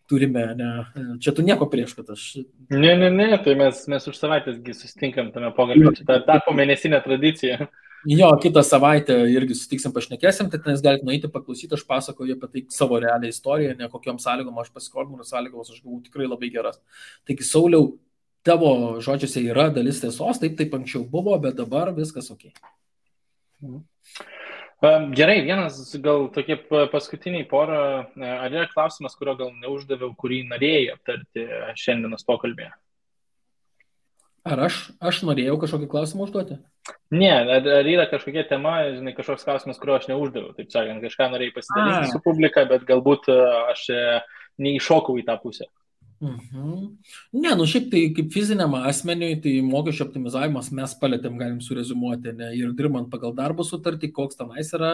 turime, ne, čia tu nieko prieš, kad aš... Ne, tai mes už savaitėsgi susitinkam tame pokalbį, čia tapo mėnesinė tradicija. Jo, kitą savaitę irgi sutiksim, pašnekėsim, tai tenais galite nueiti paklausyti, aš pasakoju apie tai savo realią istoriją, ne kokiom sąlygom aš pasiskolinau, sąlygos aš gavau tikrai labai geras. Taigi, Sauliau, tavo žodžiuose yra dalis tiesos, taip anksčiau buvo, bet dabar viskas ok. Gerai, vienas gal tokie paskutiniai porą, ar yra klausimas, kurio gal neuždaviau, kurį norėjai aptarti šiandienos pokalbėje? Ar aš norėjau kažkokį klausimą užduoti? Ne, ar yra kažkokia tema, žinai, kažkoks klausimas, kurio aš neuždaviau, taip sakant, kažką norėjai pasidalinti su publika, bet galbūt aš neįšokau į tą pusę. Ne, šiaip tai kaip fiziniam asmeniui, tai mokesčio optimizavimas mes palėtėm, galim surezumuoti, ne, ir dirbant pagal darbo sutartį, koks tenais yra,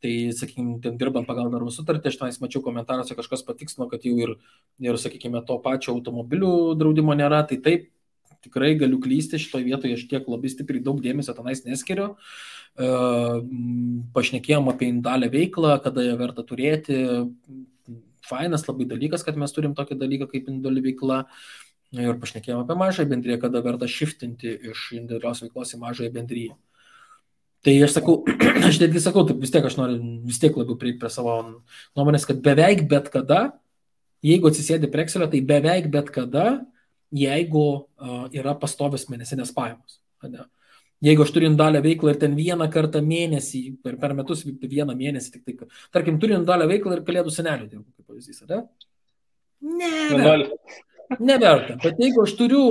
tai, sakykime, ten dirbant pagal darbo sutartį, aš tenais mačiau komentaruose, kažkas patikslino, kad jau ir, sakykime, to pačio automobilių draudimo nėra, tai taip, tikrai galiu klysti šitoje vietoje, aš tiek labai stipriai daug dėmesio tenais neskiriu. Pašnekėjom apie individualią veiklą, kada ją verta turėti. Fainas labai dalykas, kad mes turim tokį dalyką kaip individuali veikla. Ir pašnekėjom apie mažąją bendryją, kada verta shiftinti iš individualios veiklos į mažąją bendryją. Tai aš sakau, aš netgi sakau, taip vis tiek aš noriu vis tiek labiau prieiti prie savo nuomonės, kad beveik bet kada, jeigu atsisėdi prie Excelio, tai beveik bet kada, jeigu yra pastovios mėnesinės pajamos. Ne? Jeigu aš turiu individualią veiklą ir ten vieną kartą mėnesį, per metus vieną mėnesį, tik tai, tarkim, turiu individualią veiklą ir kalėdų senelių dirbu, kaip pavyzdys, ne? Neverta. Bet jeigu aš turiu,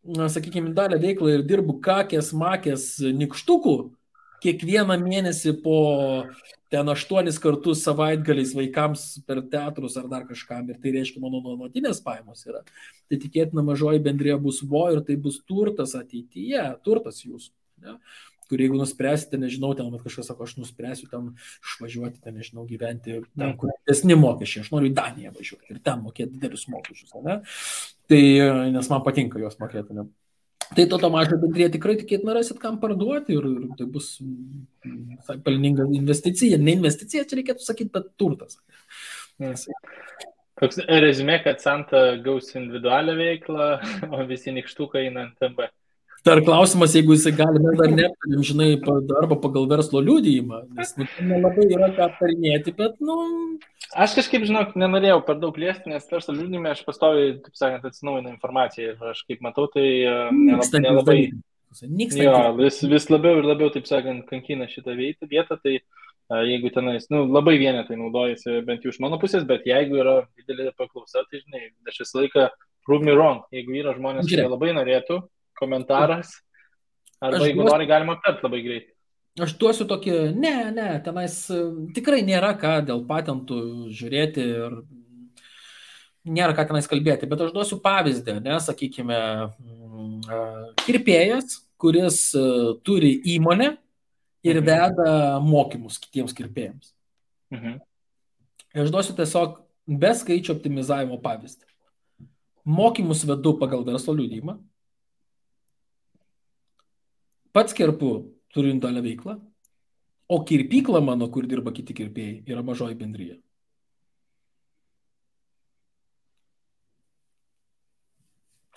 sakykime, individualią veiklą ir dirbu kakės, makės, nikštukų, kiekvieną mėnesį po ten 8 kartus savaitgaliais vaikams per teatrus ar dar kažkam, ir tai reiškia mano nuolatinės pajamos yra, tai tikėtina mažoji bendrija bus ir tai bus turtas ateityje, turtas jūsų, ne? Kur jeigu nuspręsite, nežinau, ten kažkas sako, aš nuspręsiu ten išvažiuoti, ten, nežinau, gyventi ten, kur didesni mokesčiai, aš noriu į Daniją važiuoti ir ten mokėti didelius mokesčius, ne? Tai, nes man patinka juos mokėti, ne? Tai to mažą bendriją tikrai tikėtina rasit, kam parduoti ir tai bus pelninga investicija. Ne investicija, čia reikėtų sakyti, bet turtas. Toks rezumė, kad Santa gaus individualią veiklą, o visi nikštukai eina ant MB. Dar klausimas, jeigu jisai gali, mes dar neaptarėm, žinai, arba pagal verslo liudijimą, nes nelabai yra ką aptarinėti, bet, Aš kažkaip, žinok, nenorėjau per daug liesti, nes verslo liudijime aš pastoviai, taip sakant, atsinaujinu informaciją ir aš kaip matau, tai nelabai... Jo, vis labiau ir labiau, taip sakant, kankina šitą vietą, tai jeigu tenais, labai vienetai naudojasi, bent jau iš mano pusės, bet jeigu yra didelė paklausa, tai, žinai, aš visą laiką prove me wrong, jeigu yra žmonės, kurie labai norėtų, komentaras, arba jeigu nori, galima aptarti labai greitai. Aš duosiu tokį, ne, tenais tikrai nėra ką dėl patentų žiūrėti ir nėra ką tenais kalbėti, bet aš duosiu pavyzdį, sakykime, kirpėjas, kuris turi įmonę ir veda mokymus kitiems kirpėjams. Aš duosiu tiesiog be skaičių optimizavimo pavyzdį. Mokymus vedu pagal verslo liudijimą. Pats kirpu, turiu individualią veiklą, o kirpykla mano, kur dirba kiti kirpėjai, yra mažoji bendryja.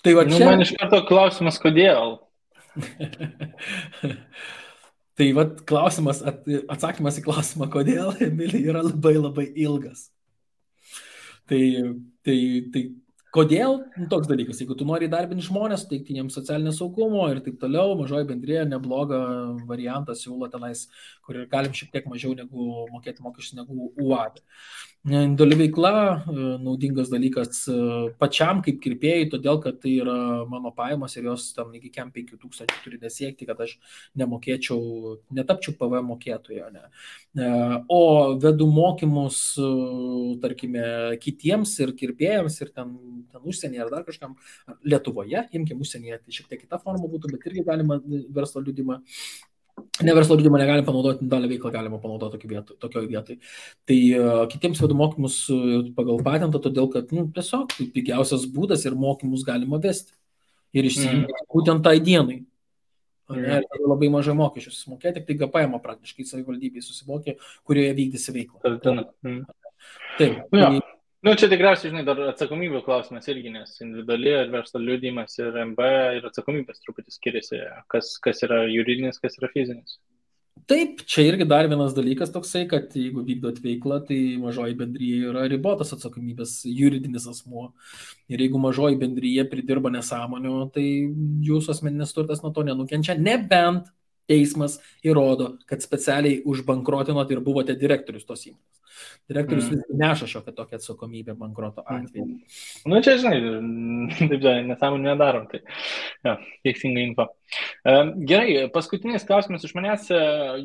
Tai va čia... Man iš karto klausimas, kodėl? Tai va klausimas, atsakymas į klausimą, kodėl, Emilija, yra labai labai ilgas. Tai kodėl toks dalykas, jeigu tu nori įdarbinti žmonės, teikti jiems socialinio saugumo ir taip toliau, mažoji bendrija neblogą variantą siūlo tenais, kur galim šiek tiek mažiau negu mokėti mokesčius negu UAD. Individuali veikla, naudingas dalykas pačiam kaip kirpėjai, todėl kad tai yra mano pajamos ir jos tam iki 5,000 turi nesiekti, kad aš netapčiau PVM mokėtojo. Ne. O vedu mokymus, tarkime, kitiems ir kirpėjams ir ten užsienyje ar dar kažkam, Lietuvoje, imkim užsienyje, tai šiek tiek kita forma būtų, bet irgi galima verslo liudimą. Ne verslo liudimą negalime panaudoti, dalį veiklą galima panaudoti tokioj vietoj. Tai kitiems vedu mokymus pagal patentą, todėl kad tiesiog tai pigiausias būdas ir mokymus galima vesti. Ir išsiimti būtent tai dienai. Labai mažai mokesčių susimokė, tik tai GPM praktiškai savivaldybėje susimokė, kurioje vykdysi veiklą. Taip. Čia tikriausiai, dar atsakomybė klausimas irgi, nes individuali ir verslo liudijimas ir MB ir atsakomybės truputį skiriasi, kas yra juridinis, kas yra fizinis. Taip, čia irgi dar vienas dalykas toksai, kad jeigu vykdot veiklą, tai mažoji bendryje yra ribotas atsakomybės juridinis asmuo. Ir jeigu mažoji bendryje pridirba nesąmonių, tai jūsų asmeninis turtas nuo to nenukenčia, nebent teismas įrodo, kad specialiai užbankrotinot ir buvote direktorius tos įmonės. Direktorius neša šiokią tokią atsakomybę bankroto atveju. Čia, taip, nesąmonį nedarom, tai teisinga info. Gerai, paskutinis klausimas iš manęs,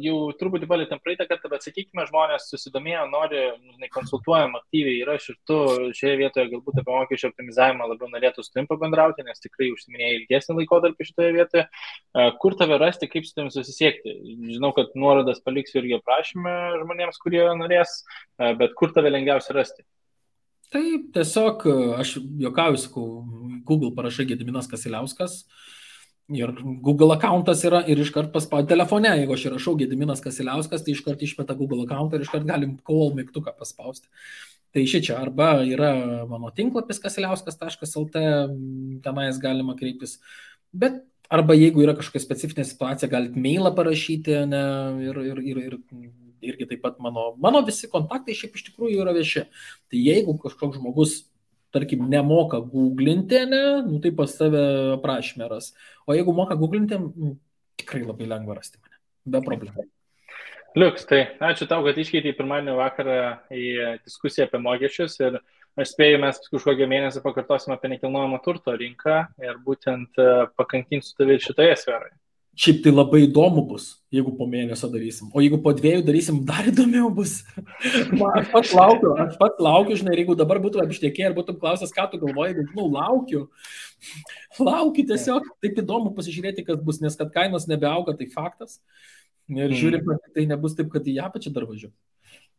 jau truputį palėtėm praeitą kartą, bet sakykime, žmonės susidomėjo, nori, konsultuojam aktyviai ir aš ir tu šioje vietoje galbūt apie mokesčių optimizavimą labiau norėtų su tavim pabendrauti, nes tikrai užsiminėjai ilgesnį laikotarpį šitoje vietoje. Kur tave rasti, kaip su tavim susisiekti? Žinau, kad nuorodas paliksiu irgi aprašymę žmonėms, kurie norės, bet kur tave lengviausia rasti? Taip, tiesiog aš juokauju, sakau, Google parašai Gediminas Kasiliauskas. Ir Google accountas yra ir iškart paspaudė telefone, jeigu aš įrašau Gediminas Kasiliauskas, tai iškart išmeta Google accountą ir iškart galim call mygtuką paspausti. Tai šičia arba yra mano tinklapis kasiliauskas.lt, tenais galima kreiptis, bet arba jeigu yra kažkokia specifinė situacija, galite mailą parašyti, ne, ir irgi taip pat mano visi kontaktai šiaip iš tikrųjų yra vieši. Tai jeigu kažkoks žmogus tarkim, nemoka googlinti, tai pas tave aprašymę ras. O jeigu moka googlinti, tikrai labai lengva rasti mane. Be problemų. Liuks, tai ačiū tau, kad iškeitei pirmadienio vakarą į diskusiją apie mokesčius ir aš spėju, mes kažkokią mėnesį pakartosim apie nekilnojamo turto rinką ir būtent pakankinsiu tave šitoje sferoje. Šiaip tai labai įdomu bus, jeigu po mėnesio darysim. O jeigu po 2 darysim, dar įdomiau bus. Aš pats laukiu, žinai, ir jeigu dabar būtų apštekė ir būtum klausęs, ką tu galvoji, laukiu tiesiog. Taip įdomu pasižiūrėti, kas bus, nes kad kainos nebeauga, tai faktas. Ir žiūrim, kad tai nebus taip, kad į apačią dar važiuoju.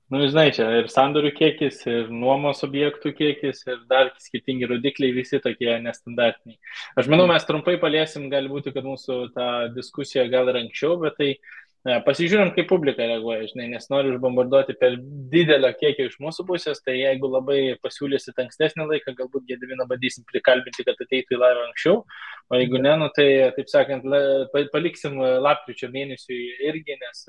Žinai, čia ir sandorių kiekis, ir nuomos objektų kiekis, ir dar skirtingi rodikliai, visi tokie nestandartiniai. Aš manau, mes trumpai paliesim, gali būti, kad mūsų ta diskusija gal ir anksčiau, bet tai pasižiūrim, kaip publika reaguoja, žinai, nes noriu užbombarduoti per didelio kiekio iš mūsų pusės, tai jeigu labai pasiūlysit ankstesnį laiką, galbūt Gediminą bandysim prikalbinti, kad ateitų į laivą anksčiau, o jeigu ne, tai, taip sakant, paliksim lapkričio mėnesiui irgi, nes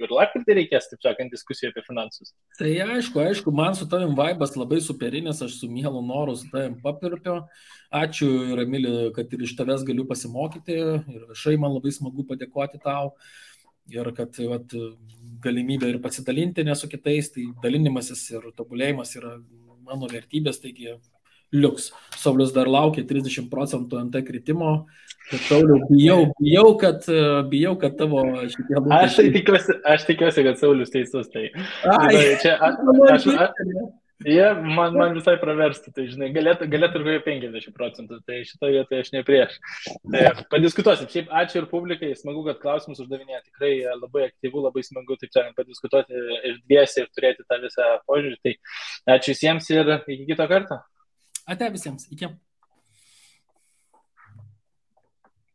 ir lapkritį reikės, taip sakant, diskusijų apie finansus. Tai aišku, man su tavim vaibas labai superinis, aš su mielu noru su tavim papirpiu. Ačiū, Emili, kad ir iš tavęs galiu pasimokyti ir viešai man labai smagu padėkoti tau. Ir kad galimybė ir pasidalinti ne su kitais, tai dalinimasis ir tobulėjimas yra mano vertybės, taigi liuks. Saulius dar laukia 30% NT kritimo. Sauliau, bijau, kad tavo šitie lūkesčiai. Aš tikiuosi, kad Saulius teisus. Tai man visai praverstų, tai žinai, galėtų ir 50%, tai šitoje vietoje aš ne prieš. Tai padiskutuosim. Šiaip ačiū ir publikai, smagu, kad klausimus uždavinėja, tikrai labai aktyvu, labai smagu, taip sakant, padiskutuoti ir dviesi ir turėti tą visą požiūrį. Tai ačiū visiems ir iki kito karto. Ate visiems, iki.